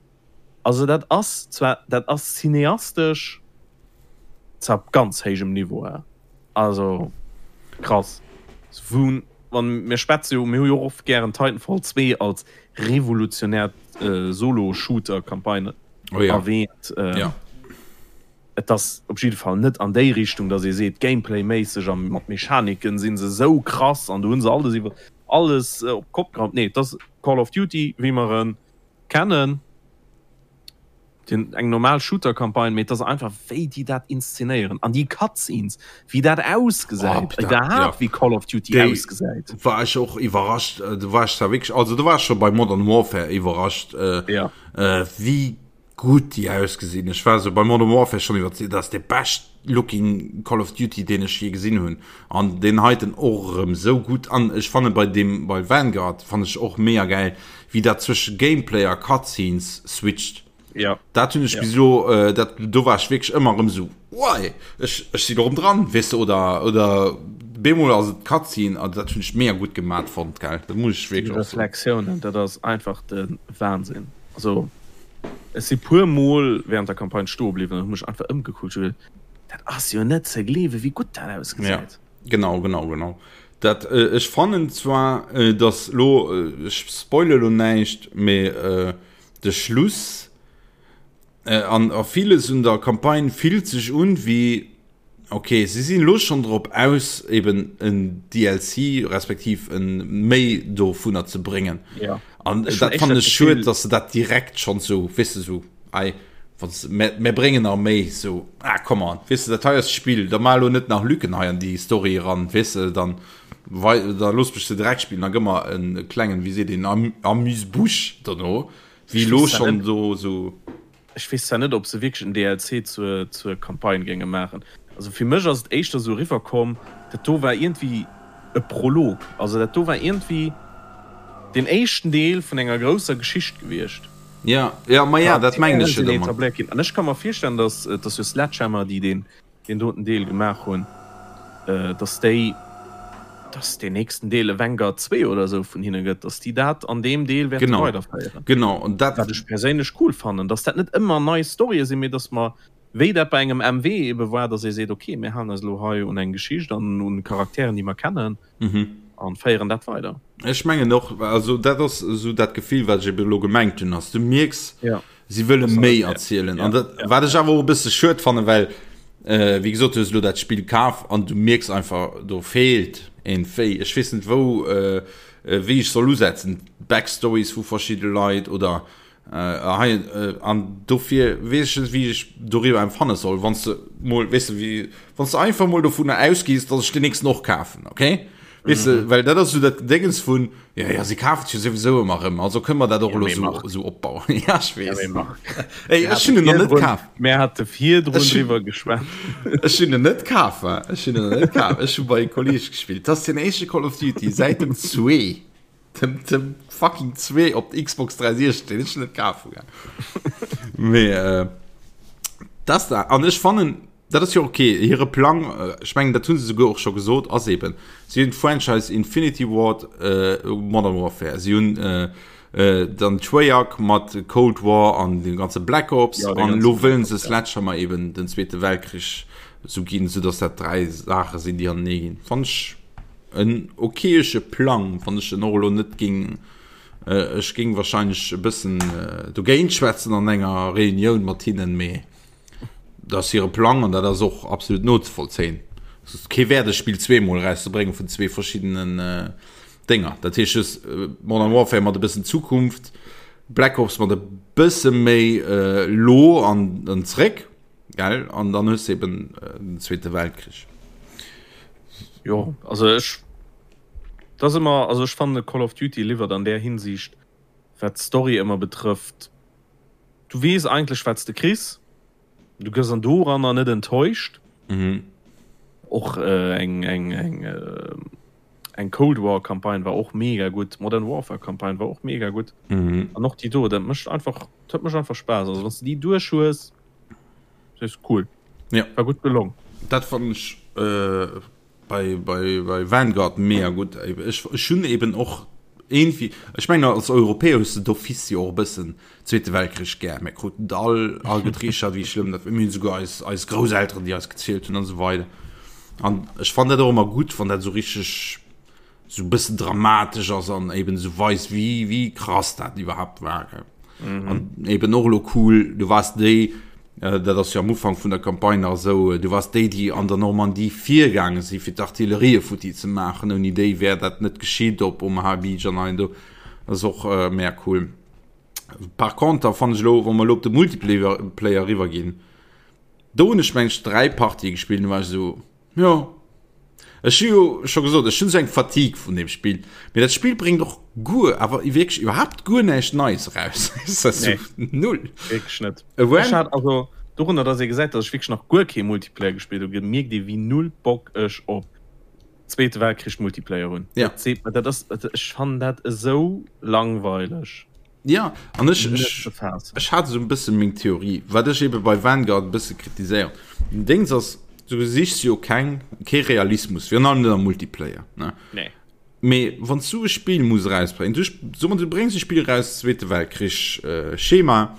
[SPEAKER 2] Also dat ass zwar dat ass cineastesch zwar op ganz héijem Niveau, he. Also krass. Wou wann mir schwätze jo, mir hu jo och oft gären Titanfall 2 als revolutionär Solo-Shooter-Campagne
[SPEAKER 1] oh ja.
[SPEAKER 2] erwähnt.
[SPEAKER 1] Ähm, ja.
[SPEAKER 2] Et ass op jidde Fall net an déi Richtung, datt ee seet, Gameplay-méisseg a mat Mechaniken si se sou krass an do hu se alles iwwer alles op d'Kopp gehauen. Nee, et ass Call of Duty, wéi mer e kennen. Den, eng normal Shooter-Campagne, mee et ass einfach wéi déi dat inszenéieren an déi Cutscenes, wéi dat ausgesäit,
[SPEAKER 1] oh,
[SPEAKER 2] iwwerhaapt
[SPEAKER 1] ja.
[SPEAKER 2] wéi Call of Duty
[SPEAKER 1] déi
[SPEAKER 2] ausgesäit.
[SPEAKER 1] War ech och iwwerrascht, äh, du war ech zwar wierklech, also du war scho bei Modern Warfare iwwerrascht, äh,
[SPEAKER 2] ja.
[SPEAKER 1] äh, wéi gutt déi ausgesinn. Ech war so bei Modern Warfare schon iwwer, dat ass de best looking Call of Duty, deen ech je gesinn hunn. An deen heiten och erëm sou gutt. An ech fanne bei deem, bei Vanguard fann ech och mega gäil, wéi dat zwësche Gameplay a Cutscenes switcht.
[SPEAKER 2] Ja.
[SPEAKER 1] Dat hunn ech
[SPEAKER 2] ja.
[SPEAKER 1] bis elo, äh, dat, do war ech wierklech ëmmer erëm sou, Wei, ech, ech sinn erëm dran, weess de, oder, oder bemol ass et Cutscene, an dat hunn ech mega gutt gemat fonnt, gell, dat muss ech
[SPEAKER 2] Déi
[SPEAKER 1] wierklech och soen.
[SPEAKER 2] Reflexiounen, dat ass einfach de Wahnsinn. Also ech si puer mol während der Campagne stoe bliwwen an hu mech einfach ëmgekuckt, ech hu geduet, dat ass jo net ze gleewen, wéi gutt dat ausgesäit.
[SPEAKER 1] Ja, genau, genau, genau. Dat, äh, ech fannen zwar, äh, dass lo, äh, ech spoile lo näischt, mee äh, de Schluss äh, an a villes un der Campagne fillt sech un wéi, ok, si sinn elo schonn drop aus, eben en DLC respektiv en méi dovunner ze bréngen.
[SPEAKER 2] Ja.
[SPEAKER 1] An
[SPEAKER 2] Ech hunn
[SPEAKER 1] dat fannen
[SPEAKER 2] éischter
[SPEAKER 1] ech schued,
[SPEAKER 2] d'Gefill,
[SPEAKER 1] dass se dat direkt schonn sou, weess de, sou, ei, wann se, mär, mär bréngen nach méi, sou, ah, come on, weess de, dat hei ass d'Spill, da maach elo net nach Lücken hei an déi Story eran, weess de, dann wei, da looss mech se direkt spillen, da gëmm mer en klengen, wéi seet een, Amuse-bouche dono, wéi
[SPEAKER 2] ech
[SPEAKER 1] elo
[SPEAKER 2] weess zwar
[SPEAKER 1] schonn
[SPEAKER 2] net,
[SPEAKER 1] do sou.
[SPEAKER 2] ech weess zwar net, ob se wierklech en DLC zur, zur Campagne géinge maachen. Also fir mech ass et éischter esou eriwwer komm, dat do war iergendwéi e Prolog. Also dat do war iergendwéi deen éischten Deel vun enger grousser Geschicht gewiescht.
[SPEAKER 1] Ja, ja, ma ja, dat mengen ech jo domat.
[SPEAKER 2] An ech ka mer virstellen, dass, et ass jo Sledgehammer, déi deen, deen doten Deel gemaach hunn, dass déi, dass deen nächsten Deel e Vanguard 2 oder esou vun hinne gëtt, dass déi dat an deem Deel wäerte weiderféieren.
[SPEAKER 1] Genau, an dat.
[SPEAKER 2] Wat ech perséinlech cool fannen, dass dat net ëmmer nei Storye sinn, mee dass mer, wéi dat bei engem MW ebe war, dass ee seet, okay, mir halen eis elo hei un eng Geschicht an un Charakteren, déi mer kennen, an féieren dat weider.
[SPEAKER 1] Ech mengen och, also dat ass esou dat Gefill, wat ech ebe elo gemengt hunn, ass, du mierks, si wëlle méi erzielen. An dat, wat ech awer och e bësse schued fannen, well, wéi gesot, du hues elo dat Spill kaf an du mierks einfach, do feelt een Véi. Ech weess net, wou, wéi ech soll usetzen, Backstories vu verschidde Leit oder Hei, an dofir weess ech net, wéi ech doriwwer empfanne soll, wann s de mol, weess de, wéi, wann s de einfach mol dovunner ausgees, datt ech deen nächsten och kafen, okay? Weess de, well dat ass esou dat Gedéngens vun, jo, jo, si kafen et jo souwisou ëmmer erëm, also kënne mer dat och elo esou, esou opbauen. Ja, ech weess. Ey, ech hunn en nach net kaf.
[SPEAKER 2] Mir hate virdrun driwwer geschwat.
[SPEAKER 1] Ech hunn en net kaf, ech hunn en net kaf. Ech hu bei e Kolleeg gespillt. Dat ass den éischte Call of Duty säit dem zwee. Dem, dem fucking 2 op der Xbox 360, den ech net kaf hunn. Mee äh, das da an ech fannen dat ass jo okay hire Plang äh, ech mengen dat hunn se souguer och scho gesot ass eben si hunn d'Franchise Infinity Ward äh, Modern Warfare si hunn äh, äh, dann Treyarch mat Cold War an dem ganze Black Ops ja, an lo wëllen se Sledgehammer eben den Zweete Weltkrich sou ginn, sou dass dat 3 Saache sinn déi anenee ginn. Fann ech En okayesche Plang, wann ech en och elo net géing, ech géing wahrscheinlech e bëssen dogéint schwätzen an enger Reunioun mat hinnen, mee dat ass hire Plang an dat ass och absolut nozevollzéien. Et ass kee Wäert e Spill zweemol erauszebréngen vun zwee verschiddenen Dénger. Dat heescht just Modern Warfare mat e bëssen Zukunft, Black Ops mat e bësse méi elo an zréck. Gell? An dann hues de eben den Zweete Weltkrich.
[SPEAKER 2] Jo, also ech, dat ass ëmmer, also ech fannen Call of Duty liwwert an där Hinsicht, wat d'Story ëmmer betrëfft, du weess eigentlech wat s de kriss, du gëss an doranner net enttäuscht.
[SPEAKER 1] Mhm.
[SPEAKER 2] Och eng, eng, eng, eng Cold War Campagne war och mega gutt, Modern Warfare Campagne war och mega gutt.
[SPEAKER 1] Mhm.
[SPEAKER 2] An och déi do, dat mécht einfach, dat mécht einfach Spaass. Also wann s de déi duerch hues, Das ist cool.
[SPEAKER 1] Ja.
[SPEAKER 2] War gut gelong.
[SPEAKER 1] Dat fand ich äh, bei, bei, bei Vanguard mega gut. Ech, ech hunn eben och irgendwie, ech meine als Europäer hues du d'office jo och e bëssen Zweete Weltkrich gär. Mir kruten et all agetriichtert, wéi schlëmm dat war. Mir hunn souguer eis, eis Grousselteren, déi eis gezielt hunn an esou weider. An ech fand dat och ëmmer gutt, wann dat esou richteg sou bëssen dramatesch ass an eben sou weist wéi wéi krass dat iwwerhaapt war gell. Mhm. An eben och lo cool, du wars déi äh, dat ass jo am Ufank vun der Campagne nach esou, äh, du wars déi déi an der Normandie virgaange si fir d'Artillerie futti ze maachen, ouni déi wär dat net geschitt op Omaha Beach an hei an do. Dat ass och äh, mega cool. Par contre fannen ech lo, wa mer lo op de Multiplayer Player riwwer ginn, do hunn ech meng ech 3 Partië gespillt, du war ech esou Jo. Ech hu jo scho gesot, ech hunn esou eng Fatigue vun deem Spill. Mee dat Spill bréngt och guer, awer wierklech iwwerhaapt guer näischt Neies eraus.
[SPEAKER 2] Nee.
[SPEAKER 1] Null.
[SPEAKER 2] Wierklech net. Ech hat also, dorunner dass ee gesäit, dass ech wierklech nach guer kee Multiplayer gespillt hu, gemierkt ee wéi null Bock ech op Zweete Weltkrich Multiplayer hunn.
[SPEAKER 1] Ja.
[SPEAKER 2] Dat seet mer, dat ass, ech fannen dat esou langweileg.
[SPEAKER 1] Ja, an ech, ech, ech hat esou e bësse meng Theorie, wat ech ebe bei Vanguard e bësse kritiséieren. Den Dings ass, du sichs jo keng, kee Realismus, virun allem net am Multiplayer, ne?
[SPEAKER 2] Nee.
[SPEAKER 1] Mee wann s du e Spill muss erausbréngen, du, so mer, du bréngs e Spill eraus, Zweete Weltkrich, äh, Schema,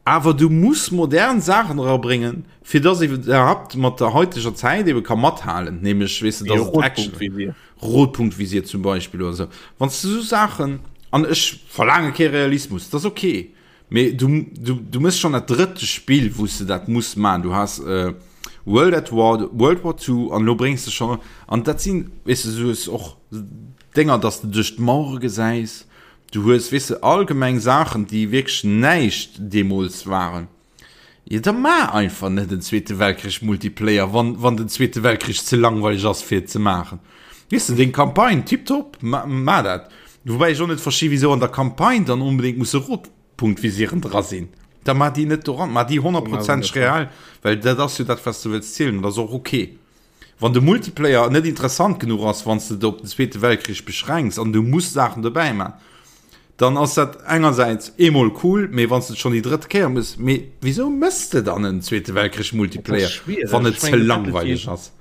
[SPEAKER 1] awer du muss modern Saachen erabréngen, fir dass ee iwwerhaapt mat der heuteger Zäit ebe ka mathalen, nämlech, weess de, dass et Action. Rotpunktvisier zum Beispill oder sou. Wann s du sou Saachen, an ech verlaange kee Realismus, dat ass ok, mee du, du, du méchs schonn dat drëtte Spill, wou s de dat muss maachen. Du has World at War, World War Two an elo bréngs de schonn, an dat sinn, weess de, du hues och Dénger, dass de duerch d'Mauere gesäis, du hues, weess de, allgemeng Saachen, déi wierklech näischt deemools waren. Jo da maach einfach net en Zweete Weltkrich Multiplayer, wann, wann den Zweete Weltkrich ze langweileg ass fir et ze maachen. Weess de, deng Campagne, tiptop, ma, maach dat. Woubäi ech och net versti wisou an der Campagne dann onbedéngt musse Rotpunktvisieren dra sinn. Da mar déi net doran, mar déi honnertprozenteg real, well dat ass jo dat, wat s de wëlls zielen, dat ass och ok. Wann de Multiplayer net interessant genuch ass, wann s de et op den Zweete Weltkrich beschränks an du muss Saachen dobäi man, dann ass dat engersäits eemol cool, mee wann s de et schonn déi drëtt Kéier muss, mee wisou mëss de dann en Zweete Weltkrich Multiplayer, wann et ze langweileg ass?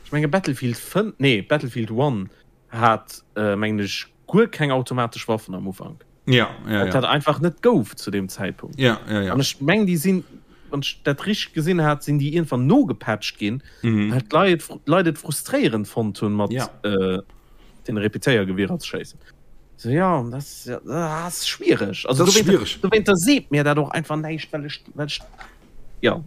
[SPEAKER 2] Ech menge Battlefield 5, nee Battlefield 1 hat mengen ech guer keng automatesch Waffen am Ufank.
[SPEAKER 1] Ja, ja,
[SPEAKER 2] ja. Dat einfach net gouf zu dem Zäitpunkt.
[SPEAKER 1] Ja, ja, ja.
[SPEAKER 2] An ech meng déi sinn, wann ech dat richteg gesinn hat, sinn déi iergendwann nogepatcht ginn, mhm. well d'Leit d'Leit et frustréierend fonnt hunn mat ja. äh, den Repetéiergewierer ze schéissen. So, ja, das, ja, das ist schwierig. Also,
[SPEAKER 1] das ist schwierig.
[SPEAKER 2] Dowéinter seet mir dat och einfach näischt, well ech, well ech, ja,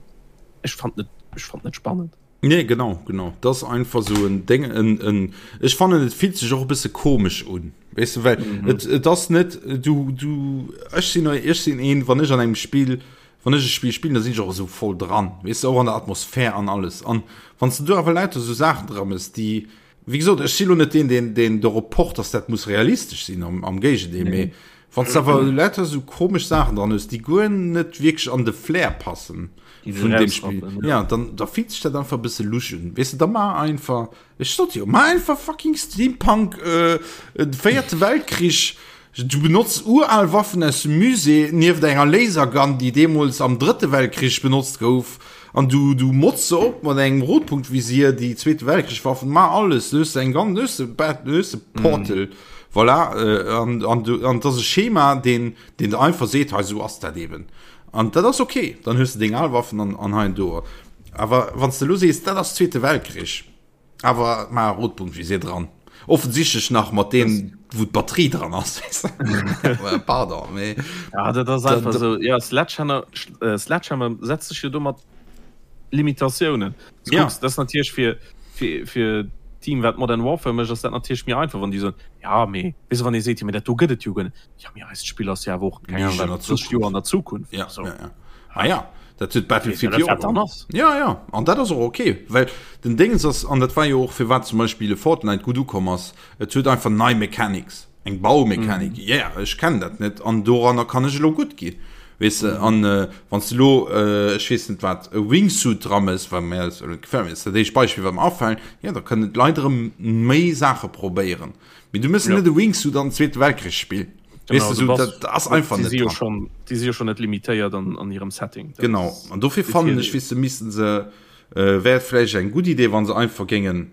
[SPEAKER 2] ech fand net, ech fand net spannend.
[SPEAKER 1] Nee, genau, genau. Dat ass einfach esou en Déng, en, en, ech fannen, et fillt sech och e bësse komesch un. Weess de, well mhm. et, et ass net, du, du, ech sinn, ech sinn een, wann ech an engem Spiel, wann ech e Spiel spillen, da sinn ech och esou voll dran, weess de, och an der Atmosphär an alles. An wann s du do awer lauter esou Saachen dra mëss, déi, wéi gesot, ech si lo net deen, deen, deen dorop pocht, dass dat muss realistesch sinn, am, am Géigendeel, mee Wann s de awer lauter esou komesch Saachen dran hues, déi guer net wierklech an de Flair passen vun deem Spill, ja, dann da fillt sech dat einfach e bësse lusch un. Weess de, da mar einfach, ech sot jo, mar einfach fucking Steampunk, äh, de véierte Weltkrich, du benotz ural Waffen aus dem Musée nieft enger Lasergun, déi deemools am drëtte Weltkrich benotzt gouf. An du du motz se op mat engem Rotpunktvisier, déi Zweete Weltkrich-Waffen, ma alles, du hues eng ganz, du hues de Bat, du hues de Portal, mm. voilà, äh, an, an, du, an das ass e Schema, deen, deen der einfach seet, hei sou ass dat eben. An dat ass okay, dann hues du deng al Waffen an, an hei an do. Awer wann s de lo sees, dat ass Zweete Weltkrich, Awer ma Rotpunktvisier dran. Offensichtlech nach mat deem, wou d'Batterie dran ass. Pardon, mee.
[SPEAKER 2] Ja, dat ass einfach esou. Ja, Sledgehammer, äh, Sledgehammer setzt sech jo do mat Limitatiounen. Du ja. kucks, dat ass natierlech fir, fir, fir Team, wat Modern Warfare mécht, ass dat natierlech méi einfach, wann déi soen, ja, mee, weess du, wann ee seet, jo, mee dat do gëtt et jo guer net. Ja, mee eist Spill ass jo awer och, keng Ahnung, wat, 30 Joer an der Zukunft.
[SPEAKER 1] Ja, so. ja, ja. Ah ja, dat huet Battlefield jo och. Ja, ja, an dat ass och okay, well den Déngens ass, an dat war jo och firwat zum Beispill e Fortnite gutt ukomm ass, et huet einfach nei Mechanics, eng Baumechanik, mm. yeah, ech kennen dat net an doranner kann ech elo gutt ginn. Weess de, mhm. an äh, wann du lo äh, ech weess net wat e Wingsuit dran ass, well mir gefällt mir dat éischt Beispiel wat mir afällt, ja, da kënnen d'Leit erëm méi Saache probéieren. Mee du mëss ja. net e Wingsuit an den Zweete Weltkrich spillen.
[SPEAKER 2] Genau, weißt du, so, das, das einfach net dran. Schon, die si jo schon net limitéiert an, an hirem Setting.
[SPEAKER 1] Das genau an dofir fannen ech wis missen se äh, wär vläicht eng gutt Idee, wann se einfach géingen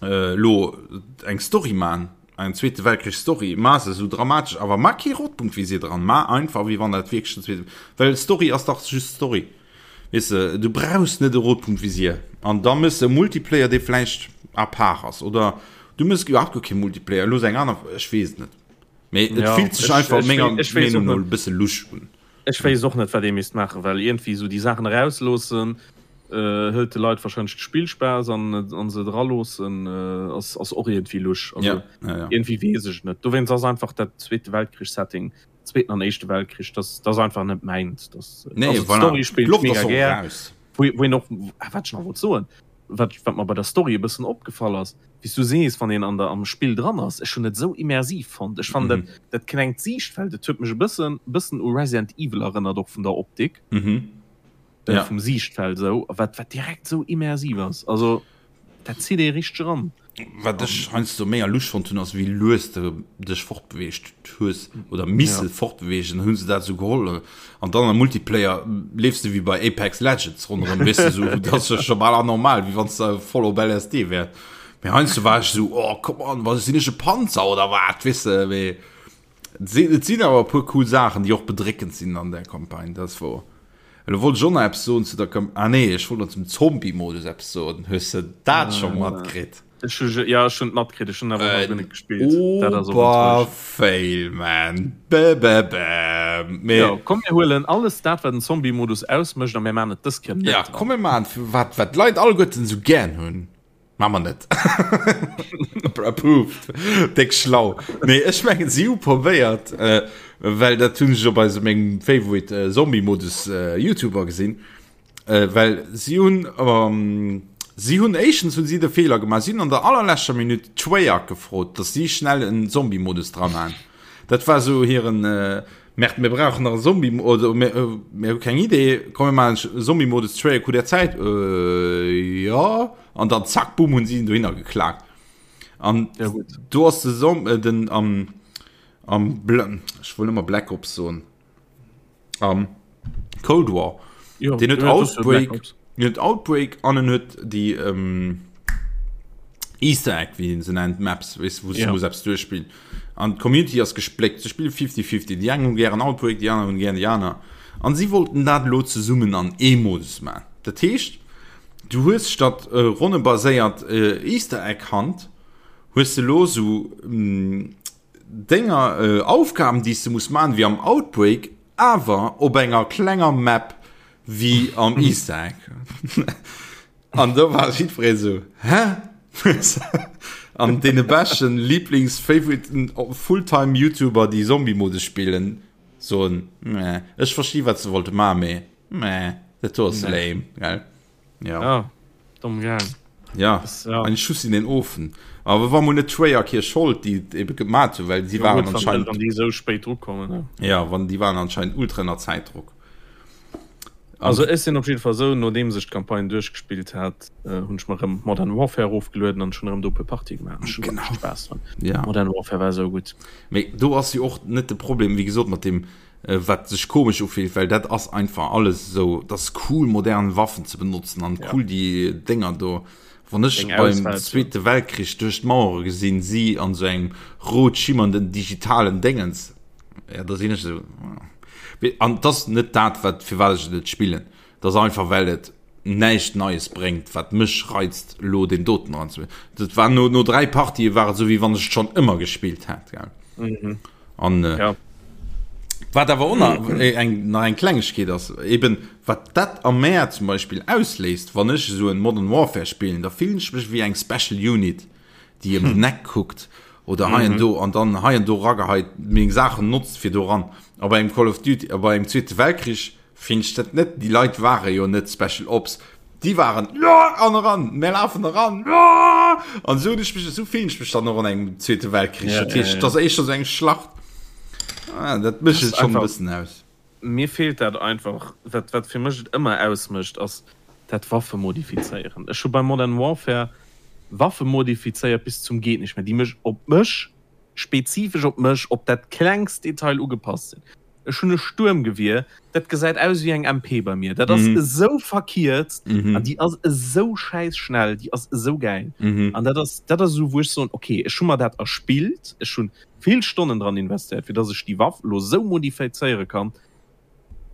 [SPEAKER 1] äh, lo eng Story man eng zweete Weltkrich Story ma se so dramatesch awer ma kee Rotpunkt wéi se dran ma einfach wéi wann dat wierklech den zweete well Story ass dach just Story weess de du brauchs net e Rotpunktvisier an da mëss e Multiplayer dee vläicht à part ass oder du mëss iwwerhaapt guer kee Multiplayer looss eng aner ech weess et net. Mee et
[SPEAKER 2] ja,
[SPEAKER 1] fillt sech einfach menger Meenung no e bësse lusch
[SPEAKER 2] un. Ech weess och net, wat ee misst maachen, well iergendwéi esou déi Saachen erausloossen, äh, hëlt de Leit warscheinlech de Spillspaass an, an se draloossen, äh, ass, ass och iergendwéi lusch. Also,
[SPEAKER 1] ja, ja, ja.
[SPEAKER 2] iergendwéi weess ech et net. Dowéinst ass einfach dat Zweete Weltkrich-Setting, Zweeten an Éischte Weltkrich, dat, dat ass einfach net mäint. Das,
[SPEAKER 1] nee,
[SPEAKER 2] also,
[SPEAKER 1] voilà.
[SPEAKER 2] d'Story spillt
[SPEAKER 1] D'Loft
[SPEAKER 2] mega
[SPEAKER 1] ass och
[SPEAKER 2] gär.
[SPEAKER 1] raus.
[SPEAKER 2] Wou, wou een och, ah, wat ech nach wollt soen, wat, wat mer bei der Story e bëssen opgefall ass, wéi s du sees, wann een an der, am Spill dran ass, ech hunn et esou immersiv fonnt. Ech fannen dat, dat klengt Siichtfeld, et huet mech e bëssen, bëssen u Resident Evil erënnert, och vun der Optik,
[SPEAKER 1] Ja.
[SPEAKER 2] vum Siichtfeld esou, wat, wat direkt esou immersiv ass. Also dat zitt ee richteg eran.
[SPEAKER 1] Wat ech heiansdo méi a lusch fonnt hunn, ass wéi lues de dech fortbeweegt hues oder misse ja. fortbeweegen, hunn se dat sou geholl. An dann am Multiplayer leefs de wéi bei Apex Legends ronderëm, weess de, sou, dat ass jo scho bal anormal, wéi wann s de voll op LSD wäers. Mee heiansdo war ech sou, oh come on, was sinn ech e Panzer oder wat, weess de, mee et sinn awer e puer cool Saachen, déi och bedréckend sinn an där Campagne, dat ass wouer. Elo wollt ech och nach eppes soen zu der Kam-, ah nee, ech wollt nach zum Zombie-Modus eppes soen. Hues de dat scho matkritt?
[SPEAKER 2] Ech hu, ja, ech hunn et matkritt, ech hunn awer nach guer net gespillt.
[SPEAKER 1] Dat ass och enttäuschend. Oberfail, man. Bäbäbäm.
[SPEAKER 2] Mee. Jo, komm mir huelen alles dat, wat den Zombie-Modus ausmécht a mir maachen et dës Kéier net
[SPEAKER 1] Ja, komm mir maachen, wat, wat d'Leit alleguerten esou gären hunn. Maa mer net. Approved. Déck schlau. Nee, ech mengen si hu probéiert, äh, well dat hunn ech op eisem mengem Favorite äh, Zombie-Modus äh, YouTuber gesinn, äh, well si hunn ähm, si hunn éischtens hunn si de Feeler gemaach, si hunn an der allerleschter Minutt Treyarch gefrot, dass si schnell en Zombie-Modus dran han. Dat war sou hiren äh,. Merde, mir brauchen nach e Zombie oder mir, äh, mir hu keng Idee, komm mir maachen e Zombie-Modus Treyarch hutt der Zäit? Äh, ja. An dann zack, boom, hunn si en dohinner geklaakt. An
[SPEAKER 2] Ja, gut.
[SPEAKER 1] do ass de Zom äh, den am am Bl ech wollt ëmmer Black Ops soen. Am Cold War.
[SPEAKER 2] Jo,
[SPEAKER 1] Den huet
[SPEAKER 2] ja, das ist ja Black
[SPEAKER 1] Outbreak,
[SPEAKER 2] Ops.
[SPEAKER 1] den huet Outbreak an en huet déi ähm, Easter Egg, wéi een se nennt, Maps, weess, wou s du
[SPEAKER 2] Ja.
[SPEAKER 1] muss eppes duerchspillen. An d'Community ass gespléckt, se spille 50-50, déi eng hu gären Outbreak, déi aner hunn gären déi aner. An si wollten dat elo zesummen an ee Modus maachen. Dat heescht, du hues statt äh, ronnebaséiert äh, Easter Egg Hunt, hues de elo sou denger Aufgaben déi s de muss maachen wéi am Outbreak, awer op enger klenger Map wéi am Easter Egg. An do war jiddweree sou, Hä? An deene beschten Lieblings Favoriten Fulltime YouTuber déi Zombie-Modus spillen soen, Meh, ech versti wat se wollte maachen, mee meh, dat do ass lame, gell?
[SPEAKER 2] Ja. Ja, domm gaang.
[SPEAKER 1] Ja,
[SPEAKER 2] Das, ja.
[SPEAKER 1] ein Schuss in den Ofen. Aber war mol net Treyarch hir Schold, déi et ebe gemat hunn, well si
[SPEAKER 2] Ja,
[SPEAKER 1] waren
[SPEAKER 2] gut, wann,
[SPEAKER 1] anscheinend
[SPEAKER 2] wann déi esou spéit drukommen. Ne?
[SPEAKER 1] ja, wann déi waren anscheinend ultra ënner Zäitdruck. An
[SPEAKER 2] Also ech sinn op jidde Fall esou, nodeems ech d'Campagne duerchgespillt hat, äh, hunn ech mer erëm Modern Warfare erofgelueden an schon erëm do e puer Partie gemaach. Ech hunn
[SPEAKER 1] genau.
[SPEAKER 2] echt Spaass dran.
[SPEAKER 1] Ja.
[SPEAKER 2] Modern Warfare war esou gutt.
[SPEAKER 1] Mee do ass jo och net de Problem, wéi gesot, mat deem wat sech komesch ufillt, well dat ass einfach alles esou, dat ass cool modern Waffen ze benotzen an cool déi Dénger do. Wann ech beim Zweete Weltkrich duerch d'Mauere gesinn, si an esou engem rot schimmernden digitalen Déngens, ja da sinn ech esou, an et ass net dat wat firwat ech et net spillen, et ass einfach well et näischt Neies bréngt wat mech reizt elo deen doten eranzespillen. Dat war no no 3 Partië war et esou wéi wann ech et schonn ëmmer gespillt hätt, gell. An äh,
[SPEAKER 2] Ja.
[SPEAKER 1] wat awer och nach äh, eng, nach eng Klengegkeet ass, eben wat dat am Mär zum Beispill ausléist, wann ech esou en Modern Warfare spillen, da fillen ech mech wéi eng Special Unit, déi ëm den Eck kuckt oder hei an do an dann hei an do rageheit, meng Saachen notzt fir do ran. A bei engem Call of Duty, a bei engem Zweete Weltkrich Finn ech dat net, déi Leit ware jo net Special Ops, déi waren jo an eran, mär lafen eran jo an esou hunn ech mech, esou fillen ech mech dann och an engem Zweete Weltkrich.
[SPEAKER 2] Ja,
[SPEAKER 1] Dat
[SPEAKER 2] ja,
[SPEAKER 1] heescht,
[SPEAKER 2] ja.
[SPEAKER 1] et ass éischter esou eng Schlacht, ah, dat mécht
[SPEAKER 2] Das
[SPEAKER 1] et schonn e
[SPEAKER 2] einfach,
[SPEAKER 1] bëssen aus.
[SPEAKER 2] mir feelt dat einfach, wat, wat fir mech et ëmmer ausmécht, ass dat Waffe modifizéieren. Ech hu bei Modern Warfare Waffe modifizéiert bis zum geet nicht mehr, déi mech op mech, spezifesch op mech, op dat klengst Detail ugepasst sinn. Ech hunn e Stuermgewier, dat gesäit aus wéi eng MP bei mir. Dat ass esou verkierzt an déi ass esou schäiss schnell, déi ass esou gäil. An dat ass, dat ass esou, wou ech soen, okay, ech hu mer dat erspillt, ech hu vill Stonnen dran investéiert, fir dass ech déi Waff elo esou modifizéiere kann,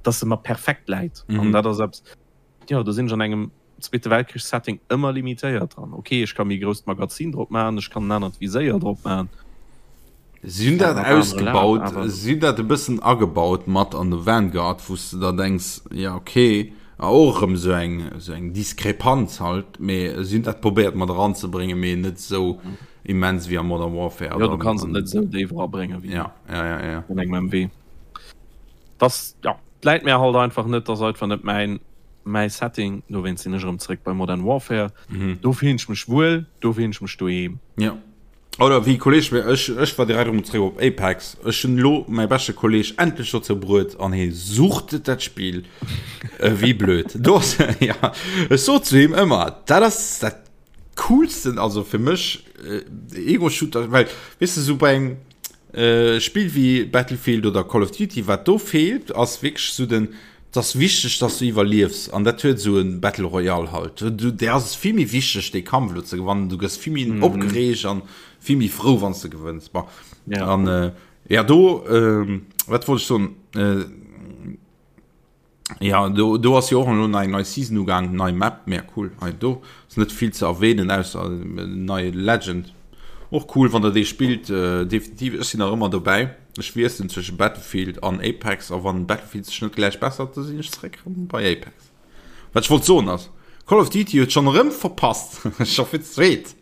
[SPEAKER 2] dass se mer perfekt läit. An dat ass eppes, Jo, do sinn ech an engem Zweete Weltkrich-Setting ëmmer limitéiert dran. Ok, ech ka méi grousst Magazin drop maachen, ech kann en anert Viséier drop maachen.
[SPEAKER 1] Si hunn dat ausgebaut, si hunn dat e bëssen agebaut mat an de Vanguard, wou s de der denks, jo ok, a och erëm esou eng, esou eng Diskrepanz halt, mee si hunn dat probéiert mat eranzebréngen, mee net esou immens wéi am Modern Warfare.
[SPEAKER 2] Jo, du kanns et net esou déif erabréngen wéi an engem MW. Dass, ja, läit mär halt einfach net, ass einfach net mäin mäi Setting, dowéinst sinn ech erëm zréck bei Modern Warfare. Mhm. Do fillen ech mech wuel, do fillen ech mech doheem.
[SPEAKER 1] Ja. Oder wéi Kolleg mir, ech, ech war direkt erëm zréck op Apex. Ech hunn elo mäi beschte Kolleg endlech dozou bruet an hie suchtet dat Spill wéi blöd. Do ass, ja, ech sot zu him ëmmer, dat ass dat coolsten, also fir mech, Ego-Shooter, well, weess de, sou bei engem Spill wéi Battlefield oder Call of Duty, wat do feelt, ass wierklech sou den, et ass wichteg, dass du iwwerliefs an dat huet sou e Battle Royale halt. Du, där ass et vill méi wichteg, dee Kampf elo ze gewannen, du gëss vill méi opgereegt an vill méi frou, wann s de gewënns. Bon, an ja, do, wat wollt ech soen? Ja, do, do ass jo och elo eng nei Season ugaang, nei Map, mega cool. Hei do ass net vill ze erwähnen, ausser nei Legend. Och cool, wann der dee spillt, äh, definitiv. Ech sinn nach ëmmer dobäi. Ech wiesselen zwësche Battlefield an Apex, a wann Battlefield sech net gläich bessert, da sinn ech zeréck erëm bei Apex. Wat ech wollt soen ass, Call of Duty huet schonn erëm verpasst, scho fir d'zweet.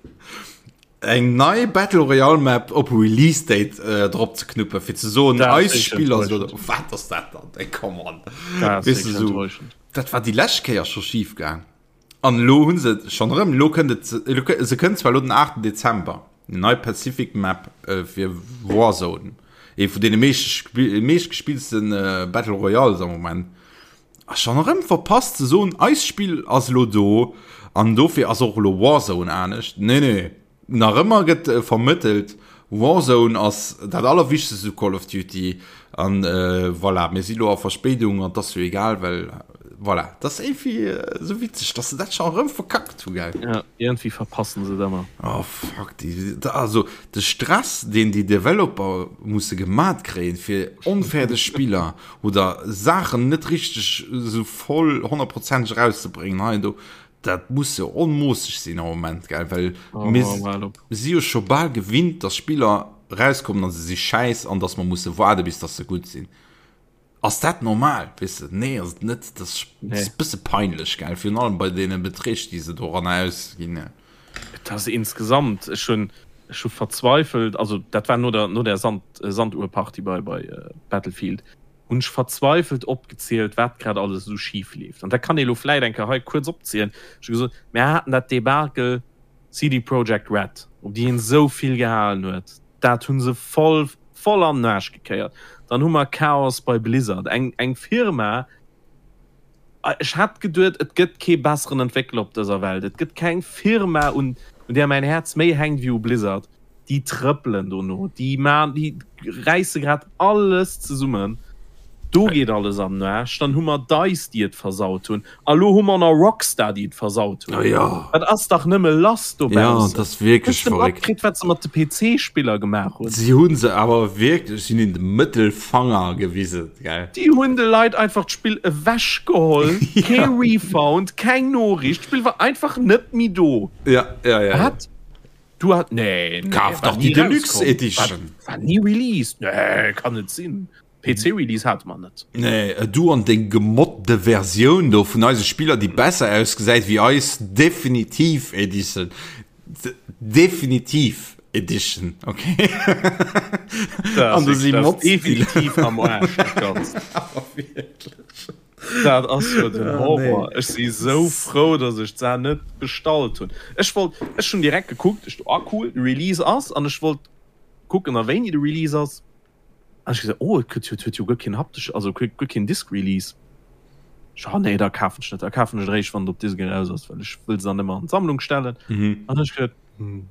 [SPEAKER 1] Eng nei Battle Royale Map op Release Date äh, drop ze knuppen fir ze soen eis Spiller so, wat ass dat dann ey, come on weißt du, so, dat war déi lescht Kéier scho schief gaang an lo hunn se schon erëm lo kënnt et se kënnt zwar lo den 8. Dezember nei Pacific Map äh, fir Warzone. Ee vun deene meeschtgespilltste Battle Royales am Moment. A schonn erëm verpasst ze soen, eist Spill ass elo do an dofir ass och elo Warzone anescht. Nee, nee, nach ëmmer gëtt vermëttelt, Warzone ass dat allerwichtegst u Call of Duty an voilà, mir si lo a Verspéidung an 't ass jo egal, well voilà. 't ass iergendwéi esou witzeg, dass se dat schonn erëm verkackt hu, gell?
[SPEAKER 2] Ja, iergendwéi verpassen se et ëmmer.
[SPEAKER 1] Oh fuck, déi, also de Stress, deen déi Developer musse gemat kréien, fir onfäerdeg Spiller oder Saachen net richteg esou voll honnertprozenteg erauszebréngen hei an do, dat muss jo onmoosseg sinn am Moment, gell, well oh, mir si jo scho bal gewinnt, dass Spiller rauskommen an se si schäiss an dass mer musse waarde bis dass se gutt sinn. Ass dat normal, weess de? Nee, ass et net. Dat ass nee. e bësse peinlech, gell, virun allem bei deene Beträg, déi se doran ausginn.
[SPEAKER 2] Et ass insgesamt, ech hunn ech hu verzweifelt, also dat war no der no der Sand Sanduhrparty bei bei Battlefield, hunn ech verzweifelt opgezielt, wat grad alles esou schif leeft. An dat kann ee lo vläit eng Kéier hei kuerz opzielen. Ech hu gesot, mir haten dat Debakel CD Projekt Red, op déi een esou vill gehalen huet, dat hu se voll voll an den Aarsch gekéiert. Dann hu mer Chaos bei Blizzard, eng eng Firma, Ech hat geduet, et gëtt kee besseren Entwéckler op dëser Welt. Et gëtt keng Firma, un där mäin Häerz méi hänkt wéi u Blizzard. Déi trëppelen dono, déi man, déi räisse grad alles zesummen. Do geet alles an den Aarsch. Dann hu mer Dice, déi et versaut hunn. A lo hu mer nach Rockstar, déi et versaut hunn. Dat ass dach nëmme lass
[SPEAKER 1] dobaussen. Jo, dat ass wierklech
[SPEAKER 2] verréckt. Hues de matkritt, wat se mat de PC-Spiller gemaach hunn?
[SPEAKER 1] Si hu se awer wierklech, si hunn hinnen de Mëttelfanger gewisen.
[SPEAKER 2] Gell. Déi hunn de Leit einfach d'Spill ewech geholl, kee Refund, keng Noriicht, d'Spill war einfach net méi do.
[SPEAKER 1] Ja, ja, ja.
[SPEAKER 2] Wat? Du hat nee,
[SPEAKER 1] nee, Kaf dach déi Deluxe Edition.
[SPEAKER 2] War, war nie released. Nee, kann net sinn. PC Release hate mer net.
[SPEAKER 1] Nee, du an deng gemodde Versioun do vun eise Spiller, déi besser ausgesäit wéi eis Definitiv Edition. Definitiv Edition, okay.
[SPEAKER 2] An du si Mods. Definitiv am Arsch, dat Ganzt. Dat ass jo den Horror. Ech si sou frou, datt ech d'Saach net bestallt hunn. Ech wollt, ech hunn direkt gekuckt, ech do, ah cool, de Release ass, an ech wollt kucken, a wéini de Release ass. An ech gesot, oh, et gëtt jo, et huet jo guer keen haptesch, also guer keen Disc Release. Ech, oh nee, da kafen ech net, da kafen ech et eréischt, wann et op Disc eraus ass, well ech wëll se dann ëmmer an d'Sammlung stellen. Mhm. An ech gesot, hm,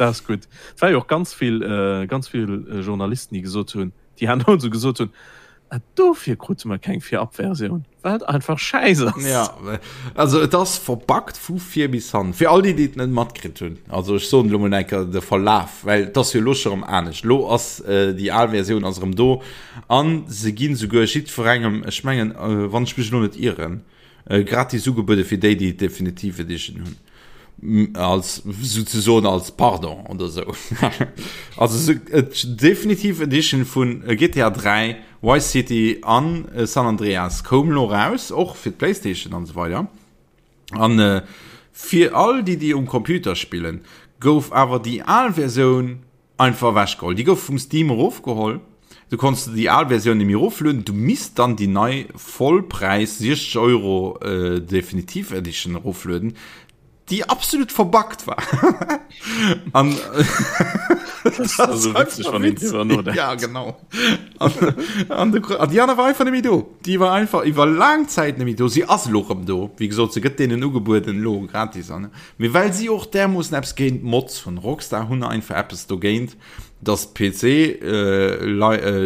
[SPEAKER 2] dat ass gutt. Et war jo och ganz vill, ganz vill Journalisten, déi gesot hunn, déi herno esou gesot hunn, ah, dofir krute mer keng Virabversioun, well et einfach schäiss
[SPEAKER 1] ass. Ja, also et ass verbuggt vu vir bis hannen. Fir all déi, déi et net matkritt hunn, also ech soen elo mol eng Kéier de Verlaf, well et ass jo elo scho rëm anescht. Elo ass déi al Versioun ass erëm do a se ginn souguer jiddwerengem, ech mengen, wann ech mech elo net ieren, Gratis ugebuede fir déi, déi d'Definitive Edition hunn. Als souzesoen als Pardon oder sou. Also d'Definitive Edition vun GTA 3, Vice City an San Andreas koum lo raus, och fir d'Playstation an esou weider. An fir all déi, déi um Computer spillen, gouf awer déi al Versioun Einfach ewech geholl. Déi gouf vum Steam erofgeholl. Du konns de déi al Versioun nemmi eroflueden. Du misst dann déi nei Vollpräis 60 Euro Definitive Edition eroflueden, déi absolut verbuggt war. An ja genau. An, an, de, an déi aner war einfach nemmi do. Déi war einfach iwwer laang Zäit nemmi do. Si ass elo rëm do. Wéi gesot, se gëtt deenen ugebueden elo gratis an. Mee well si och därmoossen eppes géint Mods hunn, Rockstar hunn einfach eppes dogéint, dass d'PC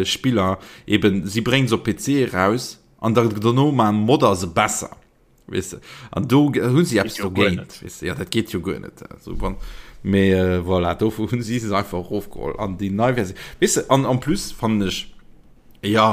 [SPEAKER 1] Spiller eben, si bréngen se op PC eraus an da dono maan Modder se besser, weess de, an do hu si eppes dogéint, weess de, jo dat geet jo guer net, also wann, mee voilà, dofir hunn si se einfach erofgeholl an déi nei Versioun, weess de, an en plus fannen ech, jo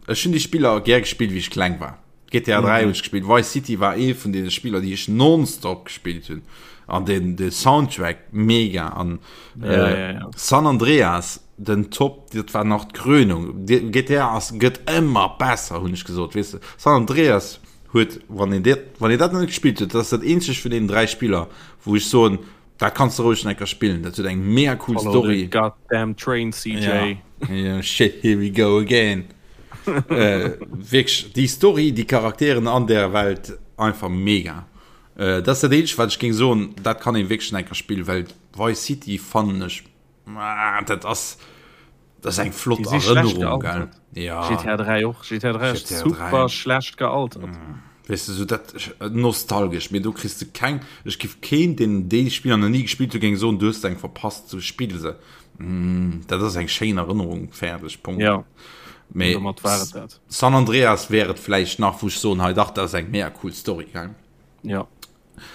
[SPEAKER 1] ech hunn déi Spiller gär gespillt wéi ech kleng war. GTA 3 hunn ech gespillt, Vice City war ee vun deene Spiller déi ech nonstop gespillt hunn an den de Soundtrack mega an ja, äh, ja, ja. San Andreas den Top dat war nach d'Krönung GTA ass gëtt ëmmer besser hunn ech gesot weess de San Andreas huet wann een dat wann een dat net gespillt huet dat ass dat eenzegt vun deenen 3 Spiller wou ech soen dat kanns de roueg nach eng Kéier spillen dat huet eng mega cool
[SPEAKER 2] Follow
[SPEAKER 1] Story
[SPEAKER 2] the goddamn train CJ
[SPEAKER 1] ja. Yeah, shit here we go again äh, wierklech déi Story, déi Charakteren an der Welt einfach mega. Äh, dat ass dat eenzegt wat ech géing soen, dat kann een wierklech nach eng Kéier spillen, well Vice City fannen ech, ah, dat ass. Dat ass eng flott Erënnerung, gell?
[SPEAKER 2] Ja. GTA 3 och. GTA 3 ass super schlecht gealtert. Mm.
[SPEAKER 1] Weess de, sou dat nostalgesch, mee do kriss de keng, ech giff keen, deen déi Spiller nach ni gespillt huet, géing soen, du hues eng verpasst, sou spill se. Mm, dat ass eng schéin Erënnerung, fäerdeg, Punkt.
[SPEAKER 2] Ja.
[SPEAKER 1] Mee
[SPEAKER 2] domat war et dat.
[SPEAKER 1] San Andreas wär et vläicht nach, wou ech soen, hei dach, dat ass eng mega cool Story, gell?
[SPEAKER 2] Ja.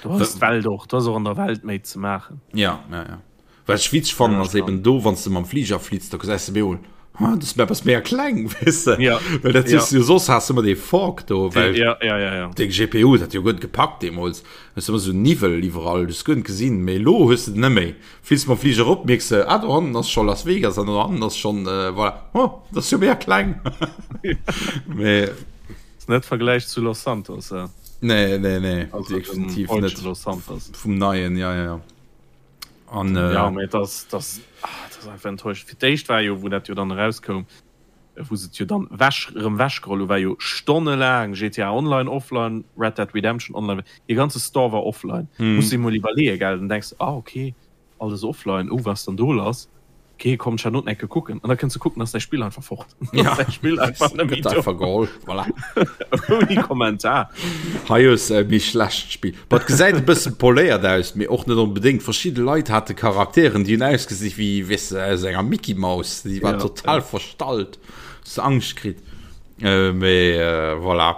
[SPEAKER 2] Du hast d'Welt och, du hast och an der Welt méi ze maachen.
[SPEAKER 1] Ja, ja, ja. Wat ech witzeg fannen ass eben do, wann s de mam Fliger flitts, da gesäis de bemol, ah, dës Map ass mega kleng, weess de?
[SPEAKER 2] Ja.
[SPEAKER 1] Well dat hues du jo soss has de ëmmer dee Fog do, well
[SPEAKER 2] ja, ja, ja, ja.
[SPEAKER 1] deng GPU, dat huet jo guer net gepackt deemools, hues de ëmmer sou Niwwel iwwerall, du hues guer net gesinn, mee elo hues de den net méi. Flitts mam Fliger erop, mierks de, ah, do hannen ass scho Las Vegas an do hannen ass schonn, voilà, oh, dat ass jo mega kleng. Mee.
[SPEAKER 2] Ass net Vergläich zu Los Santos,
[SPEAKER 1] eh? Nee, nee, nee, also definitiv net.
[SPEAKER 2] Los Santos.
[SPEAKER 1] Vum neien, ja, ja, ja.
[SPEAKER 2] An, äh, ja, mee das, das, ah, das ass einfach enttäuschend. Fir d'éischt war jo, wou dat jo dann erauskoum, wou se et jo dann wech, erëm wechgeholl hu, war jo stonnelaang GTA Online offline, Red Dead Redemption online, dee ganze Store war offline. Hm. Muss de mol iwwerleeën, gell? Dann denks de, ah, okay, Alles offline, oh wat ass dann do lass? Ok komm ech hat enke kucken an da kënns de kucken ass däi Spill einfach fort.
[SPEAKER 1] Ja.
[SPEAKER 2] Däi Spill einfach net méi do.
[SPEAKER 1] Geholl, voilà.
[SPEAKER 2] Ouni Kommentar.
[SPEAKER 1] Hei hues e méi schlecht Spill. Bah et gesäit e bëssen poléiert aus, mee och net onbedéngt. Verschidde Leit hate Charakteren déi hunn ausgesi wéi weess de aus enger Mickey Maus, déi war
[SPEAKER 2] Ja,
[SPEAKER 1] total
[SPEAKER 2] ja.
[SPEAKER 1] verstallt, hues de Angscht kritt. Mee voilà.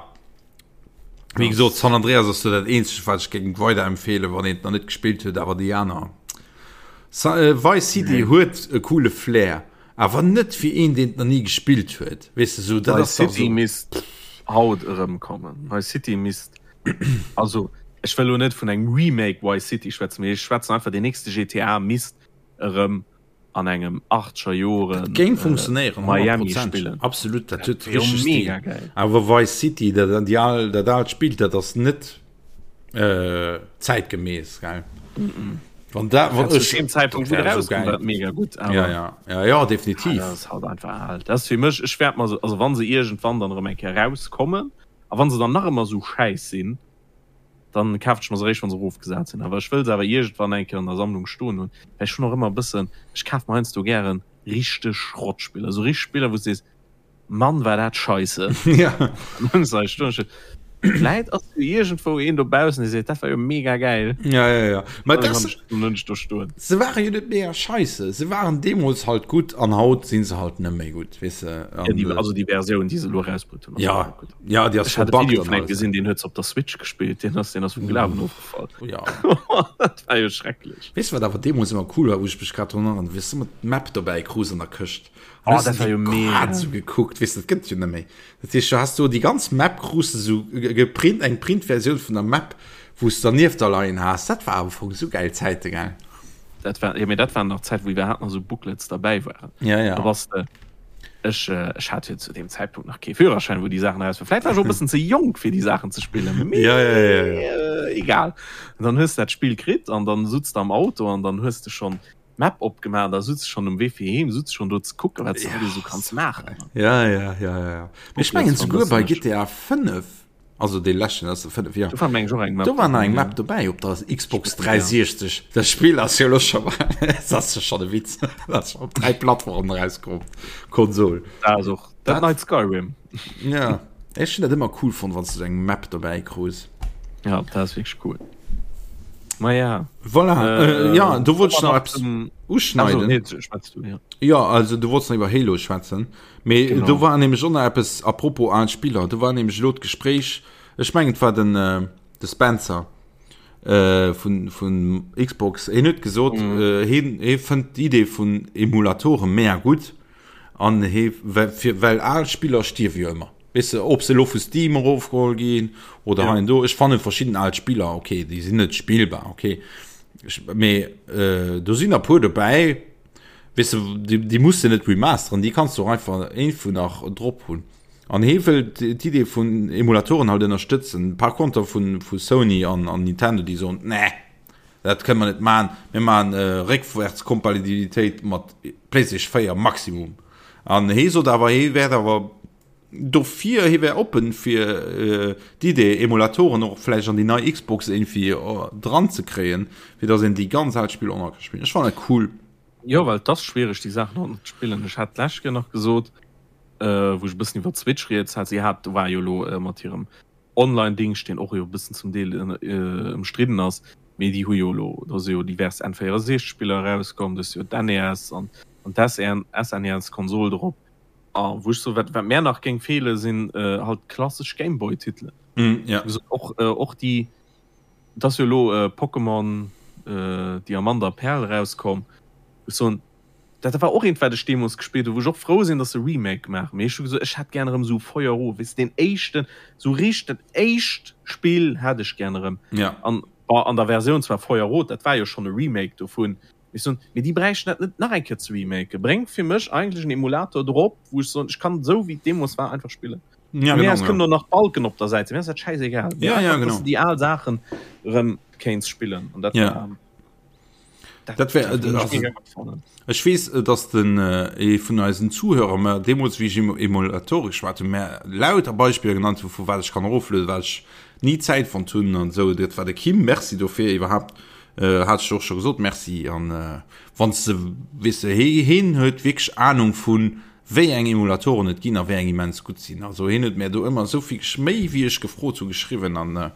[SPEAKER 1] Wéi gesot, San Andreas ass do dat eenzegt, wat ech géing weiderempfeelen, wann een et nach net gespillt huet, awer déi aner. Sa äh, Vice City nee. huet e coole Flair, awer net fir een, deen et nach ni gespillt huet. Weess de, sou,
[SPEAKER 2] dat ass City so. misst haut erëmkommen. Vice City misst also ech wëll lo net vun engem Remake Vice City schwätzen, mee ech schwätzen einfach, den nächste GTA misst erëm an engem 80er Joren
[SPEAKER 1] Dat géing funktionéieren,
[SPEAKER 2] Miami spillen.
[SPEAKER 1] Absolut, dat huet richteg Stil. Mega geil. Awer Vice City, dat déi al, dat aalt Spill, dat ass net äh, zäitgemäss, gell?
[SPEAKER 2] Mm -mm.
[SPEAKER 1] Wann dat,
[SPEAKER 2] wann ech, zu dem Zeitpunkt, wou dat rauskoum, war dat mega gutt,
[SPEAKER 1] awer. Ja, ja, ja, ja, definitiv.
[SPEAKER 2] Ah, dat ass halt einfach al. Dat ass fir mech, ech wäert mer se, also wann se iergendwann dann erëm eng Kéier rauskommen, a wann se dann nach ëmmer esou schäiss sinn, Dann kafen ech mer se eréischt wann se erofgesat sinn. Awer ech wëll se awer iergendwann eng Kéier an der Sammlung stoen hunn, well ech hunn och ëmmer e bëssen, ech kafe mer heiansdo gären richteg Schrottspiller, esou richteg Spiller wou s de sees, Mann war dat scheisse.
[SPEAKER 1] Ja.
[SPEAKER 2] An dann hunn se hei stoen, ech vläit ass jo iergendwou een dobaussen dee seet, dat war jo mega gäil.
[SPEAKER 1] Ja, ja, ja. Mä
[SPEAKER 2] Dann
[SPEAKER 1] dat
[SPEAKER 2] hunn ech, dann hunn ech do stoen.
[SPEAKER 1] Se ware jo net mega scheisse, se waren deemools halt gutt an haut si se halt net méi gutt, weess de.
[SPEAKER 2] Ja, déi, also déi Versioun déi se elo erausbrutt hunn, ass
[SPEAKER 1] Ja.
[SPEAKER 2] net gutt.
[SPEAKER 1] Ja, déi ass
[SPEAKER 2] Ech hat e Video
[SPEAKER 1] verbuggt
[SPEAKER 2] vun engem gesinn, deen huet se op der Switch gespillt, deen ass, deen ass vum Glawen ofgefall.
[SPEAKER 1] Ja.
[SPEAKER 2] Dat war jo schrecklech.
[SPEAKER 1] Weess du, wat awer deemools ëmmer cool war, wou ech mech grad drun erënneren, wéi s du ëmmer d'Map dobäi krus an der Këscht.
[SPEAKER 2] Oh, dat war jo mega.
[SPEAKER 1] Grad esou gekuckt, weess du, dat gëtt et jo net méi. Dat heescht, du has do déi ganz Map krus de sou geprint, eng Printversioun vun der Map, wou s du dernieft da leien has. Dat war am Fong esou gäil Zäite, gell?
[SPEAKER 2] Dat war, jo, mee dat waren nach Zäiten, wou iwwerhaapt nach esou Booklets derbäi waren.
[SPEAKER 1] Ja, ja.
[SPEAKER 2] Da bass de. Ech, ech hat jo zu deem Zäitpunkt nach kee Führerschäin, wou déi Saachen eraus waren. Vläit war ech och e bëssen ze jonk, fir déi Saachen ze spillen, mee
[SPEAKER 1] ja, ja, ja, ja.
[SPEAKER 2] egal. An dann hues de dat Spill kritt an dann sutz de am Auto an dann hues de schonn d'Map opgemaach, da sutz de schonn um Wee fir heem, sutz schonn do ze kucken, wat s de alles esou kanns maachen.
[SPEAKER 1] Ja, ja, ja, ja, ja. Mee ech mengen souguer bei GTA 5 Also dee leschten ass de 5, jo.
[SPEAKER 2] Do war meng ech och eng
[SPEAKER 1] Map. Do war nach eng Map dobäi op der Xbox 360. Dat Spill ass jo elo scho dat ass jo schonn e Witz. Dat ass op 3 Plattformen erauskomm, Konsol.
[SPEAKER 2] Dat ass och dat neit Skyrim.
[SPEAKER 1] Ja, ech hunn dat ëmmer cool fonnt, wann s du esou eng Map dobäi krus.
[SPEAKER 2] Ja, dat ass wierklech cool. Ma ja.
[SPEAKER 1] Voilà, äh, ja, do wollt ech nach eppes uschneiden.
[SPEAKER 2] Also, nee, schwätz du, ja.
[SPEAKER 1] Ja, also du wollts nach iwwer Halo schwätzen. Mee
[SPEAKER 2] Genau.
[SPEAKER 1] do war nämlech och nach eppes, apropos al Spiller, do war nämlech elo d'Gespréich, ech mengen et war den, äh, de Spencer äh, vun, vun Xbox, hien huet gesot,
[SPEAKER 2] Mhm.
[SPEAKER 1] äh, hien, hie fënnt d'Idee vun Emulatore mega gutt an hie, well, fir, well al Spiller stierwe jo ëmmer. Weess de, ob se elo vu Steam erofgeholl ginn oder
[SPEAKER 2] Ja.
[SPEAKER 1] hei an do. Ech fanne verschidden al Spiller, okay, déi sinn net spillbar, okay. Ech, mee äh, do sinn der puer dobäi, Weess de, déi, déi muss de net remasteren, déi kanns du och einfach iergendwou nach drop hunn. An hee wëll d'Idee vun Emulatoren halt ënnerstëtzen. Par konter vu, vu Sony an, an Nintendo, déi soen, nee, dat kënne mer net maachen, mir maachen Réckwärtskompatibilitéit mat PlayStation 4 maximum. An hee sot awer, hee wäert awer dofir, hee wär oppen fir d'Idee, Emulatoren och vläicht an déi nei Xbox iergendwéi dran ze kréien, fir datt een déi ganz al Spiller och nach ka spillen. Ech fannen dat cool.
[SPEAKER 2] Jo, well et ass schwiereg déi Saachen haut nach ze spillen. Ech hat d'lescht Kéier nach gesot, wou ech e bëssen iwwer d'Switch rieds hat, si hat war jo elo mat hirem Online-Dingscht, deen och jo e bëssen zum Deel ëmstridden ass, mee déi hu jo elo, do si jo divers N64-Spiller erauskomm, do ass jo d'NES an d'SNES-Konsol drop. A wou ech soen, wat wat mär nach géing feelen, sinn halt klassesch Gameboy-Titelen. Och och déi, et ass jo elo Pokémon Diamant a Perl erauskomm, wou ech soen, Dat war och eent wat ech deemols gespillt hu, wou ech och frou sinn, dass se Remake maachen. Mee ech hu gesot, ech hätt gär erëm esou Feuer Rot, weess de, deen éischten, esou richteg dat éischt Spill hätt ech gär erëm.
[SPEAKER 1] Ja.
[SPEAKER 2] An bon, an der Versioun zwar Feuer Rot, dat war jo schonn e Remake dovun, mee ech soen, mee déi bräichten dat net nach eng Kéier ze remaken. Bréngt fir mech eigentlech en Emulator drop, wou ech soen, ech kann esou wéi et deemols war einfach spillen.
[SPEAKER 1] Ja,
[SPEAKER 2] Vun mir
[SPEAKER 1] genau,
[SPEAKER 2] aus
[SPEAKER 1] ja.
[SPEAKER 2] kënnen och nach d'Balken op der Säit sinn, mir ass dat schäisegal. Mee
[SPEAKER 1] Ja, ja,
[SPEAKER 2] einfach, dass
[SPEAKER 1] genau.
[SPEAKER 2] de déi al Saachen erëm kéints spillen. An dat
[SPEAKER 1] Ja.
[SPEAKER 2] war.
[SPEAKER 1] Dat wär, also, ech weess, dass den ee vun eisen Zuhörer mer deemools, wéi ech iwwer Emulatore geschwat hunn, mer lauter Beispiller genannt hunn, vu wat ech kann eroflueden, wat ech ni Zäit fonnt hunn an esou. Dat war de Kim. Merci dofir iwwerhaapt. Hat ech och scho gesot, Merci. An wann s de, weess de, hee, heen huet wierklech Anung vu wéi eng Emulatoren et ginn a wéi eng immens gutt sinn. Also heen huet mär do ëmmer esou vill méi wéi ech gefrot hu geschriwwen an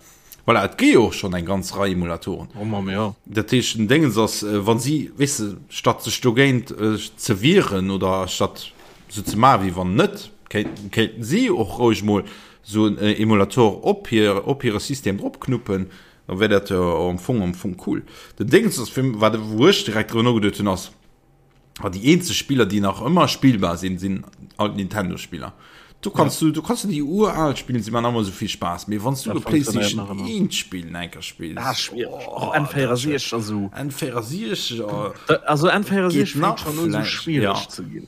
[SPEAKER 1] Voilà, et gi jo och schonn eng ganz Rei Emulatoren.
[SPEAKER 2] Oh Mamm, jo.
[SPEAKER 1] Dat heescht, den Déngens ass, wa si, weess de, statt sech dogéint ze wieren oder statt esou ze maachen, wéi wann net, kéinten, kéinten si och roueg mol esou en Emulator op hir, op hire System dropknuppen, da wär dat jo am Fong, am Fong cool. Den Déngens ass, fir wat, wou ech direkt driwwer nogeduet hunn, ass, A déi eenzeg Spiller, déi nach ëmmer spillbar sinn, sinn alt Nintendo-Spiller. Du kannst ja. du, du kannst du déi ural spillen, si man ëmmer sou vill Spaass. Mee wann du de PlayStation 1 Spill enker spills.
[SPEAKER 2] Ah, schwierig. Oh, N64 also.
[SPEAKER 1] N64
[SPEAKER 2] oh. Also N64 fänkt schon un, so schwierig
[SPEAKER 1] ja.
[SPEAKER 2] ze ginn.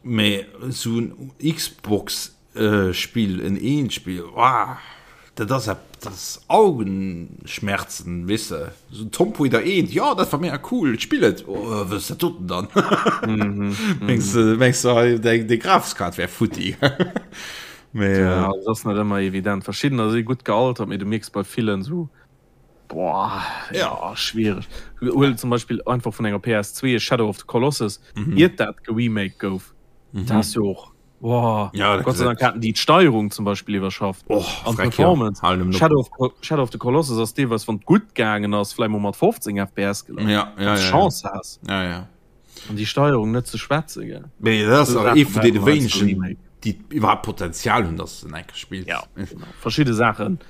[SPEAKER 1] Mee sou en Xbox Spill, en eent Spill, wah, dat ass ep, dat ass Augenschmerzen, weess de, sou Tomb Raider 1, jo, dat war mega cool, ech spill et, oh, wat ass dat doten dann? Mengs de, mengs de, hei deng, deng Grafeskaart wär futti?
[SPEAKER 2] Mee, Ja, dat ass net ëmmer evident. Verschiddener si gutt gealtert, mee du mierks bei villen sou, boah, ja, schwiereg. Huel zum Beispill einfach vun enger PS2 Shadow of the Colossus, iert dat geremaked gouf, dat ass jo och Boah,
[SPEAKER 1] ja,
[SPEAKER 2] Gott sei Dank haten déi d'Steierung zum Beispill iwwerschafft
[SPEAKER 1] oh,
[SPEAKER 2] an Performance. Ja. Shadow, of, Shadow of the Colossus ass deelweis wann gutt gaangen ass vläicht mol mat 15 FPS
[SPEAKER 1] gelaf. Ja, ja, ja,
[SPEAKER 2] Chance
[SPEAKER 1] ja.
[SPEAKER 2] has.
[SPEAKER 1] Ja, ja.
[SPEAKER 2] An déi Steierung net ze schwätze gell.
[SPEAKER 1] Mee dat ass och ee vun deene wéinegen, déi iwwerhaapt Potenzial hunn, dass de enke spills.
[SPEAKER 2] Ja, genau. Verschidde Saachen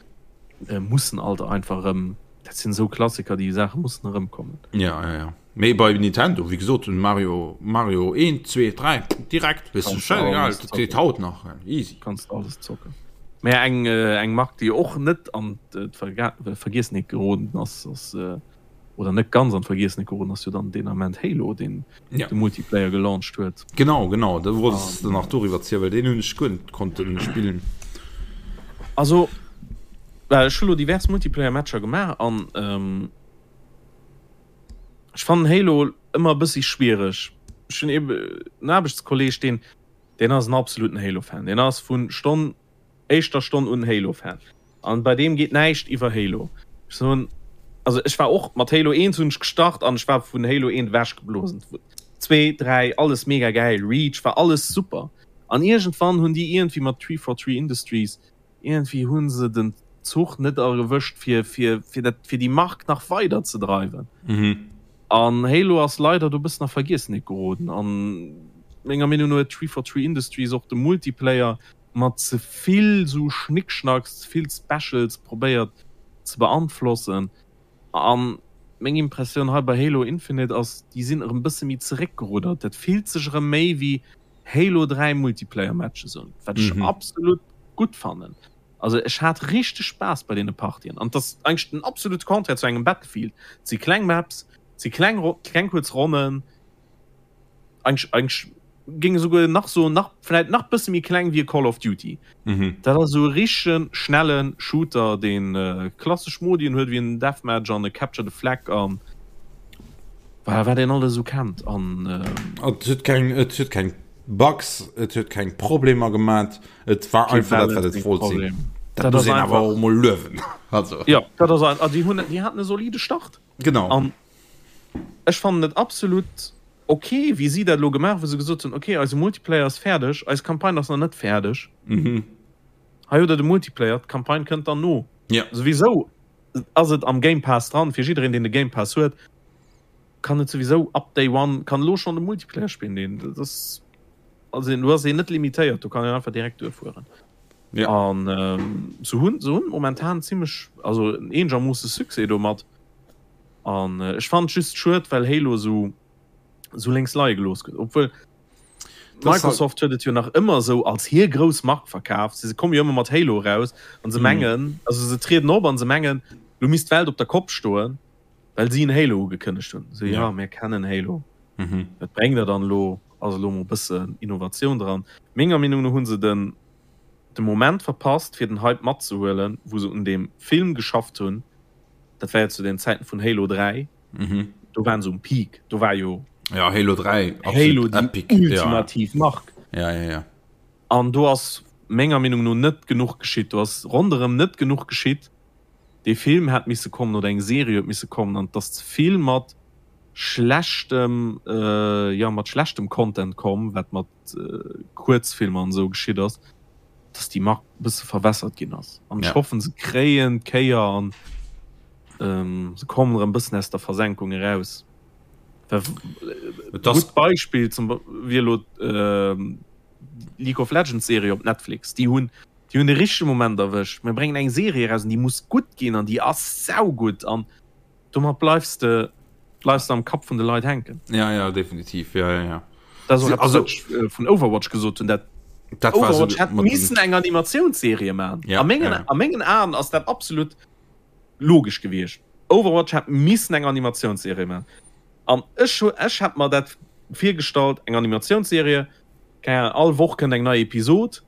[SPEAKER 2] äh, mussen alt einfach erëm, dat sinn esou Klassiker, déi Saache mussen erëmkommen.
[SPEAKER 1] Ja, ja, ja. Mee bei Nintendo, wéi gesot, den Mario, Mario 1, 2, 3, direkt, weess du, scheißegal, dat geet haut nach, easy.
[SPEAKER 2] Kanns de alles zocken. Mä eng, eng Mark, déi och net an d'Vergiessenheet geroden ass, ass, oder net ganz an d'Vergiessenheet geroden ass, jo dann deen Ament Halo, deen de Multiplayer gelauncht huet.
[SPEAKER 1] Genau, genau, da wollt s de nach doriwwer zielen, well deen hunn ech guer net konnten spillen.
[SPEAKER 2] Also, well ech hu lo divers Multiplayer-Matcher gemaach an, Ech fannen Halo ëmmer e bëssi schwiereg. Ech hunn ebe en Aarbechtskolleeg, deen, deen ass en absoluten Halo-Fan. Deen ass vun Stonn, éischter Stonn un Halo-Fan. An bei deem geet näischt iwwer Halo. Ech soen, also ech war och mat Halo 1 hunn ech gestart an ech war vun Halo 1 ewechgeblosen. 2, 3, alles mega gäil, Reach war alles super. An iergendwann hunn déi iergendwéi mat 343 Industries Iergendwéi hu se den Zuch net erwëscht fir fir fir dat fir déi Mark nach weider ze dreiwen. An Halo ass leider do bëssen a Vergiessenheet geroden an menger Meenung no huet 343 Industries och de Multiplayer mat ze vill sou Schnickschnacks, ze vill Specials probéiert ze beanflossen. An meng Impressioun hei bei Halo Infinite ass, déi sinn erëm bësse méi zeréckgeruddert. Dat fillt sech erëm méi wéi Halo 3 Multiplayer Matches un, wat ech absolut gutt fannen. Also ech hat richteg Spaass bei deene Partien an et ass eigentlech den absolute Contraire zu engem Battlefield. Et si kleng Maps, et si kleng kleng kuerz Ronnen, eigentlech eigentlech géing esouguer nach soen nach vläit nach bësse méi kleng wéi e Call of Duty. Dat ass esou e richtege schnelle Shooter, deen klassesch Modien huet wéi en Deathmatch an e Capture the Flag an Voilà, wat een alles esou kennt an.
[SPEAKER 1] Et huet keng, et huet keng Bugs, et huet keng Problemer gemat, et war einfach dat, wat et wollt sinn. Dat muss een awer och emol luewen.
[SPEAKER 2] Also. Jo, dat ass ein, déi hunn, déi haten e solide Start.
[SPEAKER 1] Genau.
[SPEAKER 2] An ech fannen et absolut. Ok, wéi si dat elo gemaach, wou se gesot hunn, ok, eise Multiplayer ass fäerdeg, eis Campagne ass nach net fäerdeg.
[SPEAKER 1] Mhm.
[SPEAKER 2] Hei hutt der de Multiplayer, d'Campagne kënnt dann no.
[SPEAKER 1] Ja.
[SPEAKER 2] Souwisou ass et am Game Pass dran, fir jiddereen, deen de Game Pass huet, kann et souwisou ab Day One, kann elo schonn de Multiplayer spillen. Deen, dat ass, also do ass een net limitéiert, do kann een einfach direkt duerfueren.
[SPEAKER 1] Ja.
[SPEAKER 2] An ähm, se hunn, se hunn momentan zimmlech, also eenegermoosse Succès domat. An ech fannen et just schued, well Halo esou esou lénks leie gelooss gëtt. Obwuel Microsoft huet et jo nach ëmmer esou als hir grouss Mark verkaaft. Se komme jo ëmmer mat Halo eraus an se mengen, also se trieden op an se mengen, lo misst d'Welt op der Kopp stoen, well si en Halo ugekënnegt hunn. Esou, ja, mir kennen Halo. Wat bréngt der dann elo? Ass elo mol e bëssen Innovatioun dran. Menger Meenung no hu se den de Moment verpasst, fir den Hype matzehuelen, wou se un deem Film geschafft hunn. Dat war jo zu den Zäiten vun Halo 3.
[SPEAKER 1] Mhm.
[SPEAKER 2] Do waren se um Peak. Do war jo
[SPEAKER 1] ja, Halo 3
[SPEAKER 2] Halo déi epic. ultimativ
[SPEAKER 1] ja.
[SPEAKER 2] Mark.
[SPEAKER 1] Ja, ja, ja.
[SPEAKER 2] An do ass menger Meenung no net genuch geschitt. Do ass ronderëm net genuch geschitt. Dee Film hätt misse kommen oder eng Serie huet misse kommen an et ass ze vill mat schlechtem äh, ja, mat schlechtem Content komm, wat mat äh, Kuerzfilmer an esou geschitt ass. dass déi Mark e bësse verwässert ginn ass. An ech hoffen, se kréien d'Kéier an ähm, se kommen erëm bëssen aus der Versenkung eraus. Gutt Beispill zum wier elo ähm, League of Legends Serie op Netflix. Déi hunn déi hunn de richtege Moment erwëscht. Mir bréngen eng Serie eraus an déi muss gutt ginn an déi ass saugutt an Domat bleifs de bleifs de am Kapp vun de Leit hänken.
[SPEAKER 1] Ja, ja, definitiv. Ja, ja, ja.
[SPEAKER 2] Dat ass och eppes, wat ech äh, vun Overwatch gesot hunn. Dat
[SPEAKER 1] Dat war
[SPEAKER 2] Overwatch
[SPEAKER 1] so,
[SPEAKER 2] hätt
[SPEAKER 1] mat
[SPEAKER 2] missen eng Animatiounsserie maachen.
[SPEAKER 1] Ja,
[SPEAKER 2] A mengen,
[SPEAKER 1] ja.
[SPEAKER 2] a mengen Aen ass dat absolut logesch gewiescht. Overwatch hätt missen eng Animatiounsserie maachen. An ech, hu- ech hätt mer dat virgestallt, eng Animatiounsserie, keng Ahnung, all Woch kënnt eng nei Episod.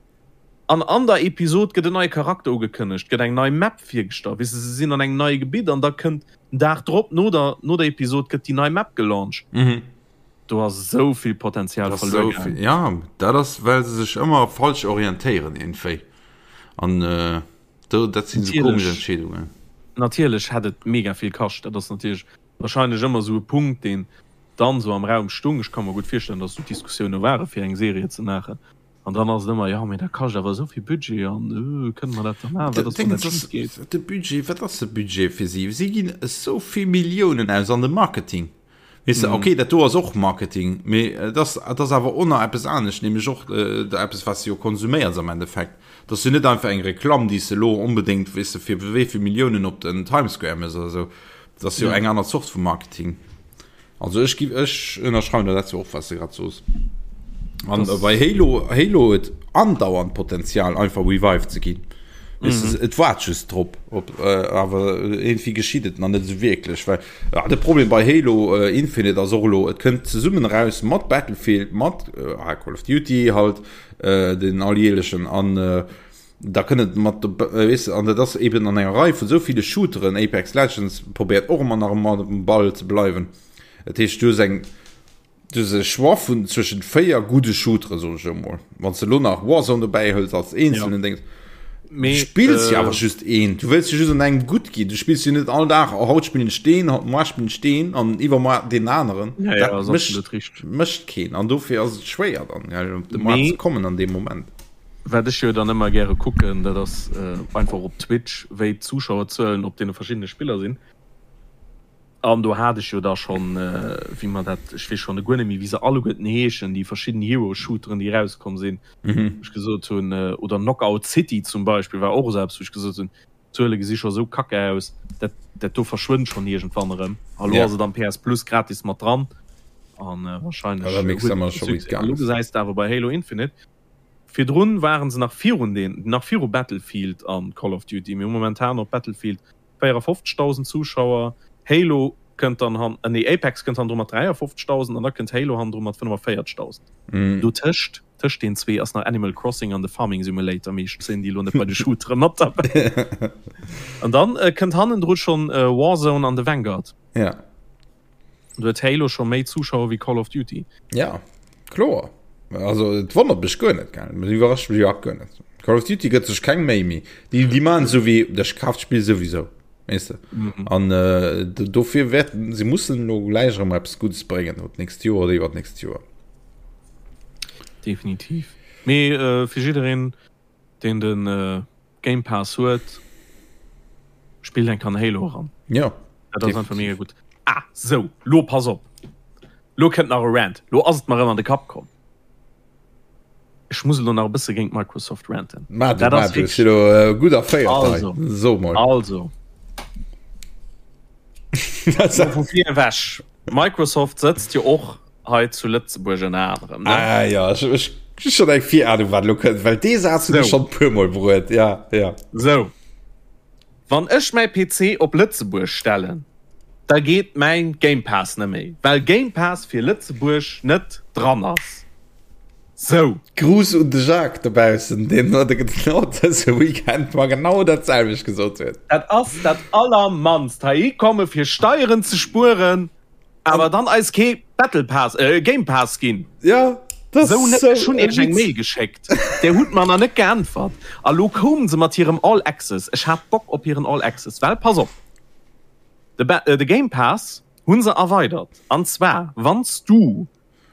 [SPEAKER 2] An an der Episod gëtt en neie Charakter ugekënnegt, gëtt eng nei Map virgestallt, weess de, se sinn an engem neie Gebitt an da kënnt den Dag drop, no der, no der Episod gëtt déi nei Map gelauncht. Do ass esou vill Potenzial verluer gaangen.
[SPEAKER 1] Ja, dat ass well se sech ëmmer falsch orientéieren iergendwéi an do, dat sinn esou komesch Entscheedungen.
[SPEAKER 2] Natierlech hätt et mega vill kascht, dat ass natierlech wahrscheinlech ëmmer esou e Punkt, deen dann esou am Raum stung. Ech ka mer gutt virstellen, datt esou Diskussioune ware fir eng Serie ze maachen. An dann ass et ëmmer, jo, mee dat kascht awer esou vill Budget an kënne mer dat da maachen, wat ass, wann dat schif geet?
[SPEAKER 1] De Budget, wat ass de Budget fir si? Si ginn esou vill Milliounen aus an de Marketing. Weess de, okay, dat do ass och Marketing, mee et ass, et ass awer och nach eppes anescht, nämlech och eppes, wat s de jo konsuméiers am Endeffekt. Et ass jo net einfach eng Reklamm, déi s de elo onbedéngt, weess de, fir wéi vill Milliounen op den Times Square méchs oder esou. Et ass jo eng aner Zort vu Marketing. Also ech gi ech ënnerschreiwen der dat zwar och was de grad soos. An das bei Halo Halo huet andauernd Potenzial einfach revived ze ginn. Mm -hmm. Et waart just drop op äh, awer irgendwie geschitt et nach net so wierklech well ja, de Problem bei Halo äh, Infinite ass och lo et kënnt zesummen raus mat Battlefield mat äh, Call of Duty halt äh, den alljährlechen an äh, Da kënnt et mat, weess de, an dat ass eben an enger Rei vun esou ville Shooteren, Apex Legends probéiert och ëmmer nach ëmmer um Ball ze bleiwen. Dat heescht, du hues eng, du hues e Choix vun zwëschent 4 gudde Shooteren, soen ech elo mol. Wann s de elo nach Warzone dobäi hëls als eenzelnen Déngs, du spills jo awer just een, du wëlls jo just an engem gutt ginn, du spills jo net all Dag, oh haut spillen ech deen, haut moar spillen ech deen an iwwermoar deen aneren. Dat mécht, mécht keen an dofir ass et schwéier dann, op de Maart ze kommen an deem Moment.
[SPEAKER 2] Wat ech jo dann ëmmer gäre kucken, dat ass einfach op Twitch, wéi d'Zuschauerzuelen op deene verschiddene Spiller sinn. An do hat ech jo da schonn, wéi mer dat, ech weess schonn guer net méi, wéi se alleguerten heeschen, déi verschidden Hero-Shooteren, déi erauskomm sinn, wou ech gesot hunn, oder Knockout City zum Beispill war och esou eppes, wou ech gesot hunn, d'Zuele gesi scho esou kacke aus, dat, dat do verschwënnt schonn iergendwann erëm. A lo ass et am PS Plus gratis mat dran an warscheinlech huet et Succès. An elo gesäis de awer bei Halo Infinite, Virdrun waren se nach virun den, nach viru Battlefield an Call of Duty. Mir hu momentan op Battlefield 54.000 Zuschauer, Halo kënnt dann han, nee Apex kënnt hannendru mat 53.000 an da kënnt Halo hannendru mat 45.000. Dotëscht, tëscht den zwee ass nach Animal Crossing an de Farming Simulator, mee ech zéien déi elo net bei de Shootere mat derbäi. An dann kënnt hannendru schonn Warzone an de Vanguard.
[SPEAKER 1] Ja.
[SPEAKER 2] Do huet Halo scho méi Zuschauer wéi Call of Duty.
[SPEAKER 1] Ja, kloer. Also et wonnert mech guer net, gell. Et iwwerrascht mech iwwerhaapt guer net. Call of Duty gëtt sech keng Méi méi. Déi, déi maachen esou wéi, ech kaf d'Spill souwisou. Weess de? Mhm. An äh, dofir wäerten se mussen lo gläich erëm eppes Guddes bréngen, op d'nächst Joer oder iwwer d'nächst Joer.
[SPEAKER 2] Definitiv. Mee äh, fir jiddereen, deen den äh, Game Pass huet, spillt eng Kan Halo eran.
[SPEAKER 1] Ja.
[SPEAKER 2] Dat ass einfach mega gutt. Ah, sou, lo pass op. Lo kënnt nach e Rant. Lo ass et mer erëm an de Kapp komm. Ech muss elo nach e bësse géint Microsoft ranten.
[SPEAKER 1] Ma du, ma du, si lo äh, gutt erféiert
[SPEAKER 2] also,
[SPEAKER 1] So mol.
[SPEAKER 2] Also. Vu vir ewech. Microsoft sëtzt jo och hei zu Lëtzebuerg ënner anerem.
[SPEAKER 1] Ne? Ah, ja, ech, ech, ech schon eng Virahnung, wat lo kënnt, well dee Saz hunn ech schon puer mol bruet. Ja, ja.
[SPEAKER 2] So. Wann ech mäi PC op Lëtzebuerg stellen, da geet mäin Game Pass net méi, well Game Pass fir Lëtzebuerg net dran ass. Sou.
[SPEAKER 1] Gruss un de Jacques dobaussen, deen genau dëse Weekend mer genau dat selwecht gesot huet.
[SPEAKER 2] Dat ass dat allermannst, heihi komme fir Steieren ze spueren. Awer dann eis kee Battle Pass, äh, Game Pass ginn.
[SPEAKER 1] Ja,
[SPEAKER 2] das so net. Ech hunn iech eng Mail geschéckt. Där hutt mer nach net geäntwert. A lo koumen se mat hirem All Access. Ech hat Bock op hiren All Access, well pass op, de, ba äh, de Game Pass hu se erweidert. An zwar, wann s du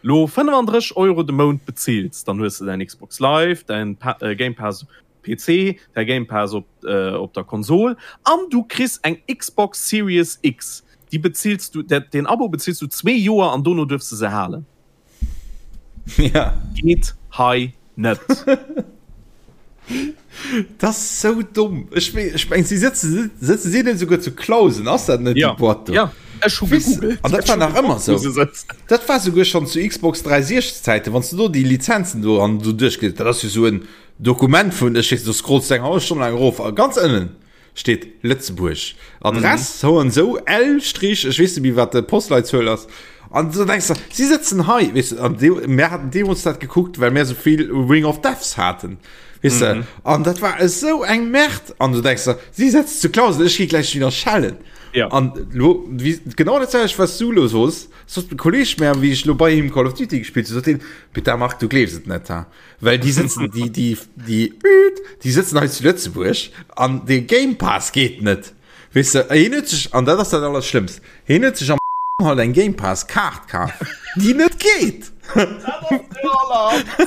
[SPEAKER 2] lo 35 Euro de Mount bezills, dann hues de däin Xbox Live, däin pa äh, Game Pass PC, däi Game Pass op op der Konsol an du kriss eng Xbox Series X. Déi bezills du, dat deen Abo bezills du zwee Joer an dono duerfs de se halen.
[SPEAKER 1] Ja.
[SPEAKER 2] Geet hei net.
[SPEAKER 1] Dat ass sou domm. Ech meng, ech meng, si sëtzen, sëtzen si net esouguer zu Clausen? Ass dat net
[SPEAKER 2] déi
[SPEAKER 1] Boîte do?
[SPEAKER 2] Ja, ech hu gegoogelt.
[SPEAKER 1] An dat war nach ëmmer sou. Dat war souguer schonn zu Xbox 360 Zäiten, wann s du do déi Lizenzen do an do duerchgelies, dat ass jo sou en Dokument vun, ech weess, do scrolls du eng hallef Stonn laang erof a ganz ënnen steet Lëtzebuerg. Adress, sou an sou, L Strich, ech weess net méi wat d'Postleitzuel ass. An du denkst der, si sëtzen hei, weess de, an dee, mär haten deemools dat gekuckt, well mär sou vill Ring of Deaths haten, weess de. An dat war esou eng Merde. An du denkst der, si sëtzen zu Clausen, ech gi gläich wieder schellen.
[SPEAKER 2] Ja.
[SPEAKER 1] An lo, wéi, genau dat selwecht, wat s du elo sos, sot e Kolleeg mär, wéi ech lo bei him Call of Duty gespillt hunn, sot hien, Peter Marc, du gleefs et net, ha. Well déi sëtzen, déi, déi, déi, déi sëtzen hei zu Lëtzebuerg an de Game Pass geet net. Weess de, hien huet sech, an dat ass dat Allerschlëmmst, hien huet sech am halt eng Game Pass Kaart kaf, déi net geet.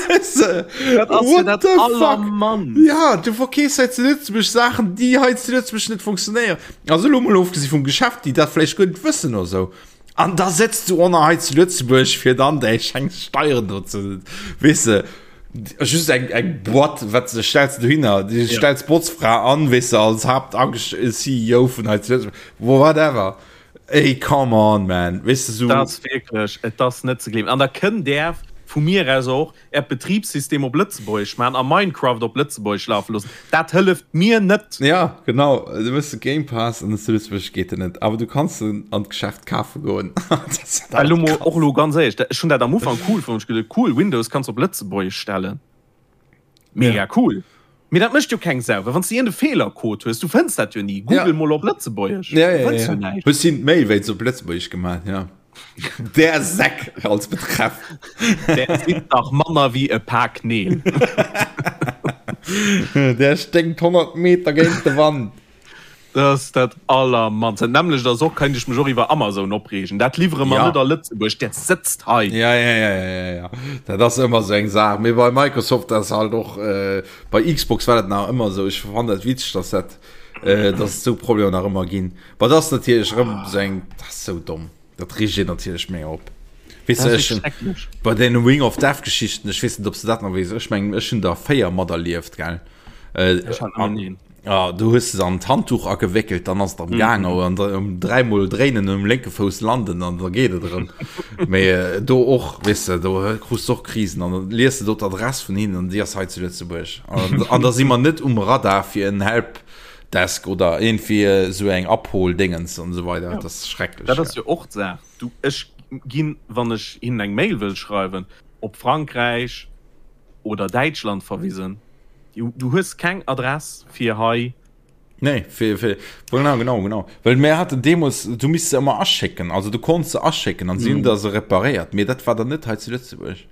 [SPEAKER 1] Weess de,
[SPEAKER 2] Dat ass jo
[SPEAKER 1] what
[SPEAKER 2] dat
[SPEAKER 1] the fuck?
[SPEAKER 2] Allermannst.
[SPEAKER 1] Ja, du verkeefs hei zu Lëtzebuerg Saachen, déi hei zu Lëtzebuerg net funktionéieren. Also elo mol ofgesi vum Geschäft, déi dat vläicht guer net wëssen oder sou. An da sëtzt du och nach hei zu Lëtzebuerg, fir dann däi schengs Steieren do ze, weess de, just eng, eng Boîte, wat se stellst du dohinner, du ja. stellst Botzfra an, weess de, als Hauptangest CEO vun hei zu Lëtzebuerg, whatever. Ey, come on, man, weess de,
[SPEAKER 2] so. Dat ass wierklech, et ass net ze gleewen. An da kënnt där vu mir aus och Äert Betribssystem op Lëtzebuergesch maachen a Minecraft op Lëtzebuergesch lafe loossen, dat hëlleft mir net.
[SPEAKER 1] Ja, genau. Du hues de Game Pass an zu Lëtzebuerg geet en net. Awer du kanns en an d'Geschäft kafe goen.
[SPEAKER 2] Well elo mol, och elo ganz éierlech, ech hunn dat am Ufank cool fonnt, ech geduet, cool, Windows kanns op Lëtzebuergesch stellen. Mega cool. Mee dat mécht jo keng Sau, well wann s de iergend e Feelercode hues, du fënns dat jo ni. Google mol op Lëtzebuergesch,
[SPEAKER 1] du fënns jo näischt. Hues him d'Mail wéinst op Lëtzebuergesch gemaach, ja. Der Säck als Betreff.
[SPEAKER 2] Der sinn dach manner wéi e Pak Neel.
[SPEAKER 1] Der sténkt 100 Meter géint de Wand.
[SPEAKER 2] Dat ass dat allermannst. Dat nämmlecht ass och, kéint ech mech och iwwer Amazon opreegen. Dat liwwere mer
[SPEAKER 1] Ja.
[SPEAKER 2] net a Lëtzebuerg, dat sëtzt hei.
[SPEAKER 1] Ja, ja, ja, ja, ja, ja. Dat ass ëmmer sou eng Saach. Mee bei Microsoft ass halt och, äh, bei Xbox war dat nach ëmmer sou. Ech fannen dat witzeg, dass dat, äh, dass et sou Problemer nach ëmmer ginn. Bah, dat ass natierlech erëm sou eng, dat ass sou domm. Dat reegt een natierlech méi op. Weess
[SPEAKER 2] Dat
[SPEAKER 1] de,
[SPEAKER 2] ass
[SPEAKER 1] ech,
[SPEAKER 2] schrecklech.
[SPEAKER 1] bei den Ring of Death Geschichten, ech weess net, ob s de dat nach weess. Ech mengen, ech hunn der 4 materlieft, gell? Äh,
[SPEAKER 2] Ech hat nëmmen een.
[SPEAKER 1] Ja, du hues se an d'Handtuch agewéckelt, dann ass et am Gaang, mm. an um dräimol dréinen um lénke Fouss landen an da geet et erëm. Mee äh, do och, weess de, do krus du och Krisen an dann lies de do d'Adress vun hinnen an déi ass hei zu Lëtzebuerg. An, an da si mer net um Radar fir en Helpdesk oder iergendwéi esou eng Abholdéngens an esou weider.
[SPEAKER 2] Ja.
[SPEAKER 1] Dat ass schrecklech.
[SPEAKER 2] Dat ass jo och d'Saach. Du, ech ginn, wann ech hinnen eng Mail wëll schreiwen, op Frankräich oder Däitschland verwisen. Du hues keng Adress fir hei.
[SPEAKER 1] Nee, fir, fir, genau, genau, genau. Well mir haten deemools, du misst se ëmmer aschécken, also du konns se aschécken an si hunn der se reparéiert, mee dat war dann net hei zu Lëtzebuerg.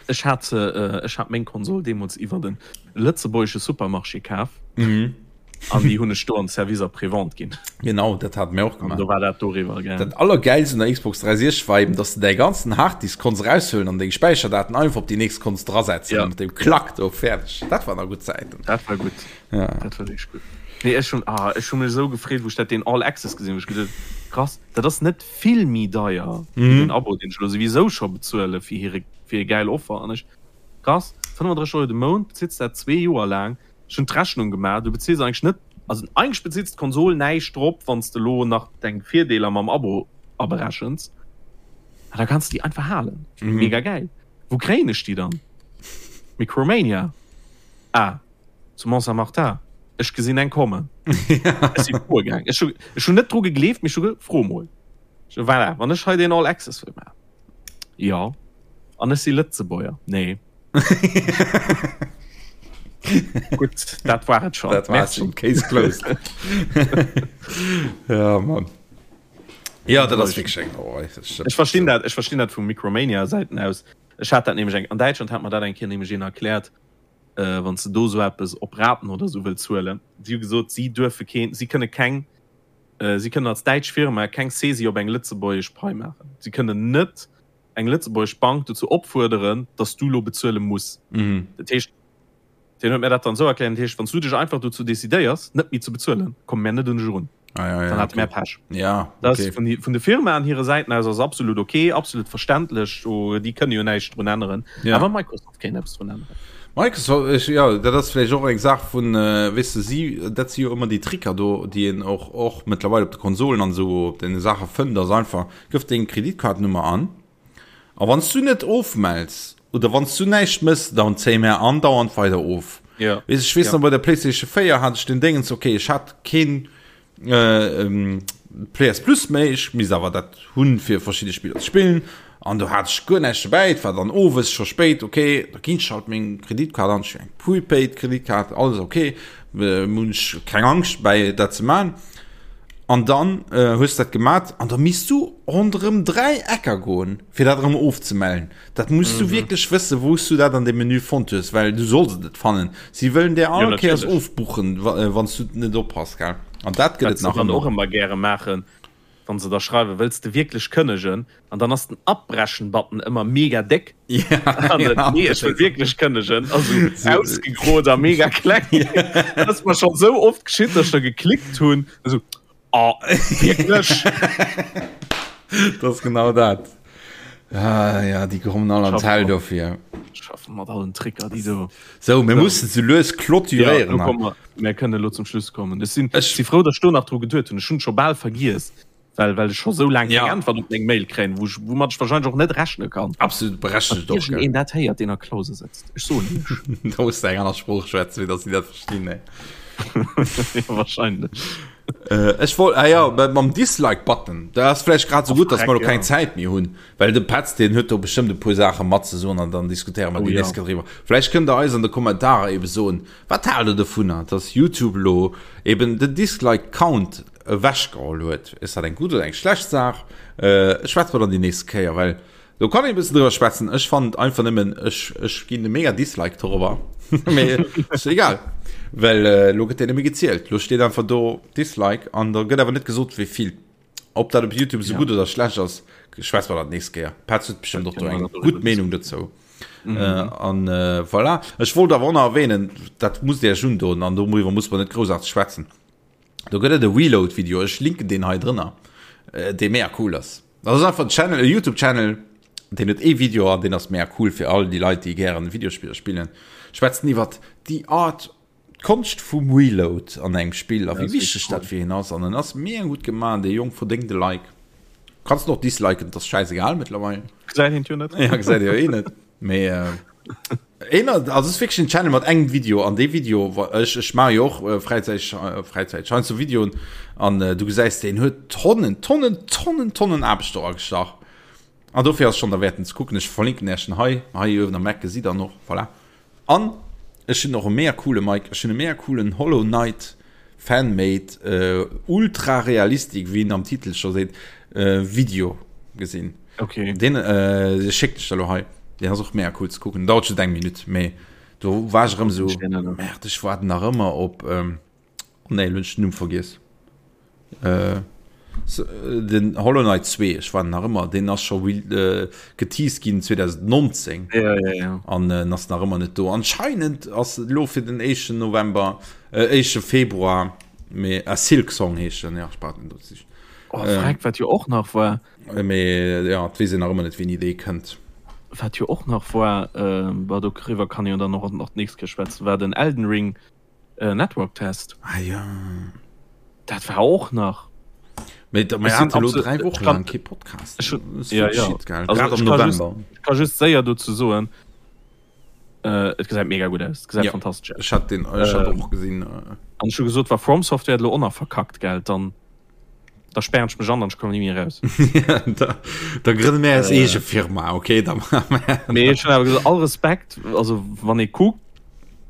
[SPEAKER 2] Ech hat se, ech hat meng Konsol deemools iwwer e lëtzebuergesche Supermarché kaf.
[SPEAKER 1] Mhm.
[SPEAKER 2] An déi hunn ech do an Service après-vente ginn.
[SPEAKER 1] Genau, dat hate mir och
[SPEAKER 2] gemaach. An do war dat doriwwer,
[SPEAKER 1] gell. Dat Allergäilst un der Xbox 360 war eben, dass de däi ganzen Harddisk konns eraushuelen an deng Späicherdaten einfach op déi nächst konns drasetzen.
[SPEAKER 2] Ja.
[SPEAKER 1] Mat deem Klack do, fäerdeg. Dat waren nach gutt Zäiten.
[SPEAKER 2] Dat war gutt.
[SPEAKER 1] Ja.
[SPEAKER 2] Dat war wierklech gutt. Nee, ech hunn, ah, ech hu mech esou gefreet, wou ech dat deen All Access gesinn hunn. Ech geduet, krass, dat ass net vill méi deier wéi den Abo, deen ech elo souwisou scho bezuele fir hire, fir hir gäil Offer. An ech, krass, 35 Euro de Mount, bezills dat zwee Joer laang. Ech hunn d'Rechnung gemaach, du bezills eigentlech net, also eigentlech bezills d'Konsol näischt drop, wann s de elo nach deng Virdeeler mam Abo aberechens. An da kanns de déi einfach halen. Mega gäil. Wou kréien ech déi dann? Micromania? Ah, zu Mont-Saint-Martin. Ech gesinn eng kommen. Ech si froe gaang. Ech hu, ech hunn net dru gegleeft, mee ech hu ge, fro mol. Ech hu, voilà, wann ech hei deen All Access wëll maachen. Jo. An ech si Lëtzebuerger. Nee. Gutt, dat war et schon.
[SPEAKER 1] Dat war schon. Case closed. ja, Mann. Ja, dat ass wierklech eng Sauerei.
[SPEAKER 2] Ech verstinn dat, ech verstinn dat vu Micromania Säiten aus. Ech hat dat nämlech eng, an Däitschland hat mer dat eng Kéier nämlech een erkläert, äh, wann s de do esou eppes op Raten oder esou wëlls huelen. Si hu gesot, si duerfe keen, si kënne keng, äh, si kënnen als däitsch Firma keng Saisie op eng lëtzebuergesch Pai maachen. Si kënnen net eng lëtzebuergesch Bank dozou opfuerderen, dass du lo bezuele muss.
[SPEAKER 1] Mhm.
[SPEAKER 2] Dat heescht, deen huet mir dat dann esou erkläert, dat heescht, wann s du dech einfach dozou decidéiers, net méi ze bezuelen, komme mär net un dech erun.
[SPEAKER 1] Ah, ja, ja,
[SPEAKER 2] Dann hate
[SPEAKER 1] okay.
[SPEAKER 2] mär Pech.
[SPEAKER 1] Ja,
[SPEAKER 2] Dat
[SPEAKER 1] okay.
[SPEAKER 2] ass vun, vun de Firmaen hire Säiten aus ass absolut okay, absolut verständlech, do, déi kënne jo näischt drun änneren.
[SPEAKER 1] Ja.
[SPEAKER 2] Awer Microsoft kéint eppes drun änneren.
[SPEAKER 1] Microsoft, ech, ja, dat ass vläicht och eng Saach vun, äh, weess de, si, dat si jo ëmmer déi Tricker do, déi een och, och mëttlerweil op de Konsolen an esou op deene Saache fënnt, ass einfach, Gëff deng Kreditkaartennummer an a wann s du net ofmells oder wann s du näischt mëss, dann zéie mär andauernd weider of.
[SPEAKER 2] Ja.
[SPEAKER 1] Weess ech weess
[SPEAKER 2] Ja.
[SPEAKER 1] nach bei der PlayStation 4 hat ech den Déngens, okay, ech hat keen äh, ähm, PS Plus méi, ech misst awer dat hunn fir verschidde Spiller ze spillen an do hat ech guer näischt dobäi, et war dann owes scho spéit, okay, da ginn ech halt meng Kreditkaart an, ech hunn eng Prepaid Kreditkaart, alles okay, äh, hunn ech keng Angscht bäi dat ze man. An dann hues de dat gemat an da misst du ronderëm 3 Ecker goen, fir dat erëm ofzemellen. Dat muss du wierklech wëssen, wou s du dat an deem Menü fonnt hues, well du solls et net fannen. Si wëllen där all Kéiers ofbuchen, wann s du net oppass, gell? An dat gëtt
[SPEAKER 2] Wat
[SPEAKER 1] et
[SPEAKER 2] se
[SPEAKER 1] nach
[SPEAKER 2] dann och
[SPEAKER 1] ëmmer.
[SPEAKER 2] ëmmer gäre maachen, wann se da schreiwen, wëlls de wierklech kënnegen? An dann ass den Abbrechen-Button ëmmer mega déck.
[SPEAKER 1] Ja,
[SPEAKER 2] An dann, nee, ech wëll wierklech kënnegen. Also ausgegrot a mega kleng. Dat ass mer schonn esou oft geschitt, dass ech da geklickt hunn. Esou, oh, wierklech?
[SPEAKER 1] Dat ass genau dat. Ah, ja, déi kommen all an d'Häll dofir.
[SPEAKER 2] Schaffen mat allen Tricker, déi do.
[SPEAKER 1] Sou, mir mussen sou lues clôturéieren.
[SPEAKER 2] Ja, lo komme mer, mir kënnen elo zum Schluss kommen. Ech sinn, ech si frou, datt ech do nach dru geduet hunn. Ech hunn et scho bal vergiess, well, well ech scho sou laang keng
[SPEAKER 1] Ja.
[SPEAKER 2] Äntwert op meng Mail kréien, wou ech, woumat ech wahrscheinlech och net rechne kann.
[SPEAKER 1] Absolut berechtigt
[SPEAKER 2] Wann
[SPEAKER 1] och, gell?
[SPEAKER 2] iergendeen dat héiert, deen a Klause sëtzt, ech soen iech.
[SPEAKER 1] Da muss de eng aner Sprooch schwätzen, fir datt si dat verstinn, ey.
[SPEAKER 2] Ja, wahrscheinlech.
[SPEAKER 1] Äh, ech wollt, ah ja, mam Dislike-Button, da ass vläicht grad sou gutt, datt mer lo keng Zäit méi hunn. Well de Petz, deen huet do bestëmmt e puer Saache matzesoen an dann diskutéiere mer
[SPEAKER 2] Oh
[SPEAKER 1] déi
[SPEAKER 2] ja.
[SPEAKER 1] nächst Kéier driwwer. Vläicht kënnt der eis an de Kommentarer ebe soen, wat haalt der dovunner, dass YouTube elo eben den Dislike Count ewechgeholl huet? Ass dat eng gutt oder eng schlecht Saach? Äh, schwätze mer dann déi nächst Kéier, well do kann een e bëssen driwwer schwätzen. Ech fannen et einfach nëmmen, ech, ech ginn e mega Dislike dorobber. Mee ass egal, well elo gëtt deen net méi gezielt. Elo steet einfach do Dislike an da gëtt awer net gesot, wéi vill. Ob dat op YouTube sou
[SPEAKER 2] ja.
[SPEAKER 1] gutt oder schlecht ass, schwätze mer dat nächst Kéier. Petz huet bestimmt och do eng gutt Meenung dozou.
[SPEAKER 2] Mhm.
[SPEAKER 1] Äh, an äh, voilà. Ech wollt awer och nach erwähnen, dat musst Dir Iech undoen an doriwwer muss man net groussaarteg schwätzen. Do gëtt et e Reload-Video, ech linken deen hei drënner, äh, dee mega cool ass. Dat ass einfach en Channel, e YouTube-Channel, deen huet ee Video an deen ass mega cool fir all déi Leit, déi gären Videospiller spillen. Schwätzen iwwert déi Art D'Konscht vum Reload an engem Spill a wéi wichteg dat fir hien ass. An en ass mega gutt gemaach, dee Jong verdéngt e Like. Kanns en och disliken, et ass schäisegal mëttlerweil.
[SPEAKER 2] Gesäit een et jo net.
[SPEAKER 1] Ja, gesäit ee jo eh net. Mee een, also et ass wierklech en Channel mat engem Video an dee Video, ech, ech maache jo och fräizäiteg, fräizäiteg heiansdo Videoen an du gesäis, deen huet Tonnen, Tonnen, Tonnen, Tonnen Aarbecht do agestach. An dofir ass schonn derwäerten ze kucken. Ech verlinken Iech en hei, hei uewen am Eck gesitt der en och, voilà. An ech hunn och e mega coole Mike, ech hunn e mega coolen Hollow Knight Fanmade ultra realistic, wéi en am Titel scho seet, Video gesinn.
[SPEAKER 2] Okay.
[SPEAKER 1] Deen schécken ech der lo hei. Deen ass och mega cool ze kucken. Dauert just eng Minutt, mee do war ech erëm esou, Merde, ech waarden nach ëmmer op. Oh nee, elo hunn ech den Numm vergiess. Äh, den Hollow Knight 2, ech war nach ëmmer, deen ass scho äh, geteased ginn 2019
[SPEAKER 2] ja, ja, ja.
[SPEAKER 1] an äh, ass nach ëmmer net do. Anscheinend ass lo fir den éischten November, äh, éischte Februar, mee äh, Silk Song heescht den, ja, ech brauch den do ze.
[SPEAKER 2] Oh, äh, wat jo och nach war.
[SPEAKER 1] Äh, mee ja, et weess een nach ëmmer net, wéini dee kënnt.
[SPEAKER 2] Wat jo och nach war, äh, doriwwer kann jo dann och nach d'nächst Kéier schwätzen, war den Elden Ring. Äh, Network Test.
[SPEAKER 1] Ah ja.
[SPEAKER 2] Dat war och nach.
[SPEAKER 1] Mee da, mir haten elo 3 Wochen lang kee Podcast.
[SPEAKER 2] Ech, ja, ja. Shit, gell? Also, Grad am November. Just, ich kann just séier dozou soen, äh, et gesäit mega gutt aus. Et gesäit ja. fantastesch
[SPEAKER 1] aus. Ech hat den ech hat äh, och gesinn.
[SPEAKER 2] Äh. An ech hu gesot, wa From Software lo och nach verkackt, gell, dann da sperren ech mech an, dann ech komme nie méi raus.
[SPEAKER 1] da, da grënne mir eis äh, eege Firma, okay? Da
[SPEAKER 2] Mee ech hunn awer gesot, all Respekt, also wann ee kuckt,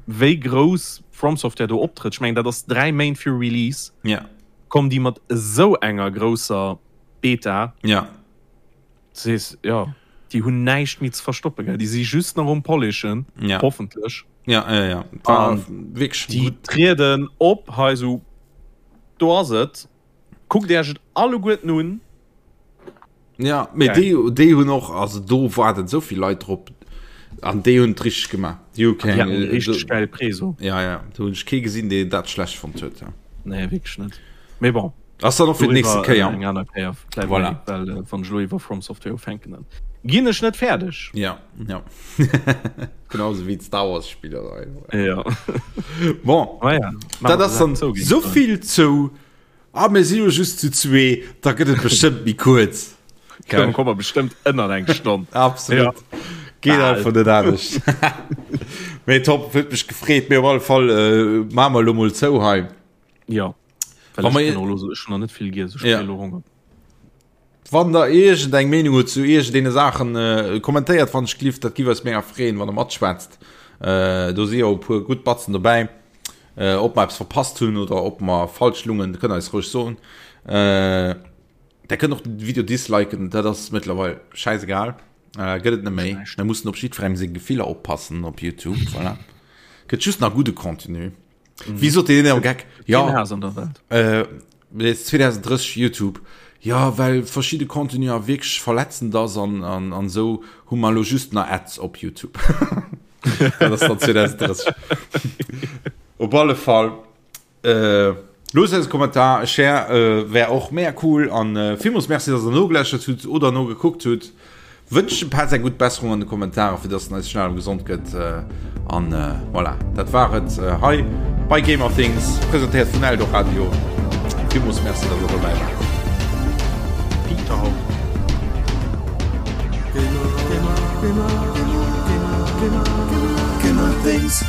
[SPEAKER 2] wéi grouss From Software do optrëtt, ech mengen dat ass 3 Méint fir Release,
[SPEAKER 1] ja.
[SPEAKER 2] kommen déi mat esou enger grousser Beta.
[SPEAKER 1] Ja.
[SPEAKER 2] Du sees, ja, déi hunn näischt méi ze verstoppen, gell? Déi si just nach um Polishen,
[SPEAKER 1] ja.
[SPEAKER 2] hoffentlech.
[SPEAKER 1] Ja, ja, ja.
[SPEAKER 2] War wierklech déi trieden op hei esou. Do ass et. Kuckt Iech et alleguerten un.
[SPEAKER 1] Ja, mee déi, déi hunn och, also do waarden esou vill Leit drop an déi hunn et richteg gemaach. Déi hu
[SPEAKER 2] keng. Déi haten richteg gäil Preso.
[SPEAKER 1] Ja, ja, do hunn ech kee gesinn, deen dat schlecht fonnt huet. Ja.
[SPEAKER 2] Nee, wierklech net. Mee bon.
[SPEAKER 1] Ass dann och fir d'nächste Kéier.
[SPEAKER 2] Eng aner Kéier
[SPEAKER 1] vläicht voilà.
[SPEAKER 2] Well äh, wann ech elo iwwer From Software ufänken, dann ginn ech net fäerdeg.
[SPEAKER 1] Ja, ja. Genauso wéi d'Star Wars Spiller.
[SPEAKER 2] Ja.
[SPEAKER 1] Bon,
[SPEAKER 2] ah, ja.
[SPEAKER 1] dat ass dann so vill zou. Ah, mir si jo just zu zwee, da gëtt et bestëmmt méi kuerz.
[SPEAKER 2] Dann komme mer bestëmmt ënner eng Stonn.
[SPEAKER 1] Absolut. Ja. Geet einfach net anescht. Mee top, huet mech gefreet. Mee op alle Fall äh, maache mer elo mol zou hei.
[SPEAKER 2] Ja.
[SPEAKER 1] Well
[SPEAKER 2] ech kann och elo, ech hunn nach net vill giess, ech
[SPEAKER 1] ja.
[SPEAKER 2] elo Honger.
[SPEAKER 1] Wann der iergend eng Meenung hutt zu iergendeene Saachen, äh, kommentéiert wann ech glift, dat giff eis mega freeën, wann der matschwätzt. Äh, do si jo e puer gutt Batzen dobäi. Äh, ob mer eppes verpasst hunn oder ob mer falsch lungen, kënnt eis roueg soen. Äh, der kënnt och den Video disliken, dat ass mëttlerweil schäisegal. Äh, gëtt et net méi. Mir mussen op jiddwerengem seng Gefiller oppassen op YouTube, voilà. Gëtt just nach gudde Contenu. Mhm. Wéi sot deen am Geck?
[SPEAKER 2] Ja. Haas an der Welt.
[SPEAKER 1] Äh, 2030 YouTube. Ja, well verschiedene Contenu a wierklech verletzend ass an, an, an sou hu mer lo just nach Ads op YouTube. Dat ass dann 2030. Op alle Fall. Äh, Loosst eis e Kommentar, e Share äh, wär och mega cool an äh, villmools Merci, dass der nogeläschert hutt oder nogekuckt hutt. Wënscht dem Petz eng gutt Besserung an de Kommentaren, fir dass en eis schnell erëm gesond gëtt. An voilà, dat war et hei bei Gamer Things, presentéiert vun Eldoradio. Villmools Merci, dass der dobäi waart.
[SPEAKER 2] Peter.
[SPEAKER 3] Gamer, Gamer, Gamer, Gamer, Gamer, Gamer Things.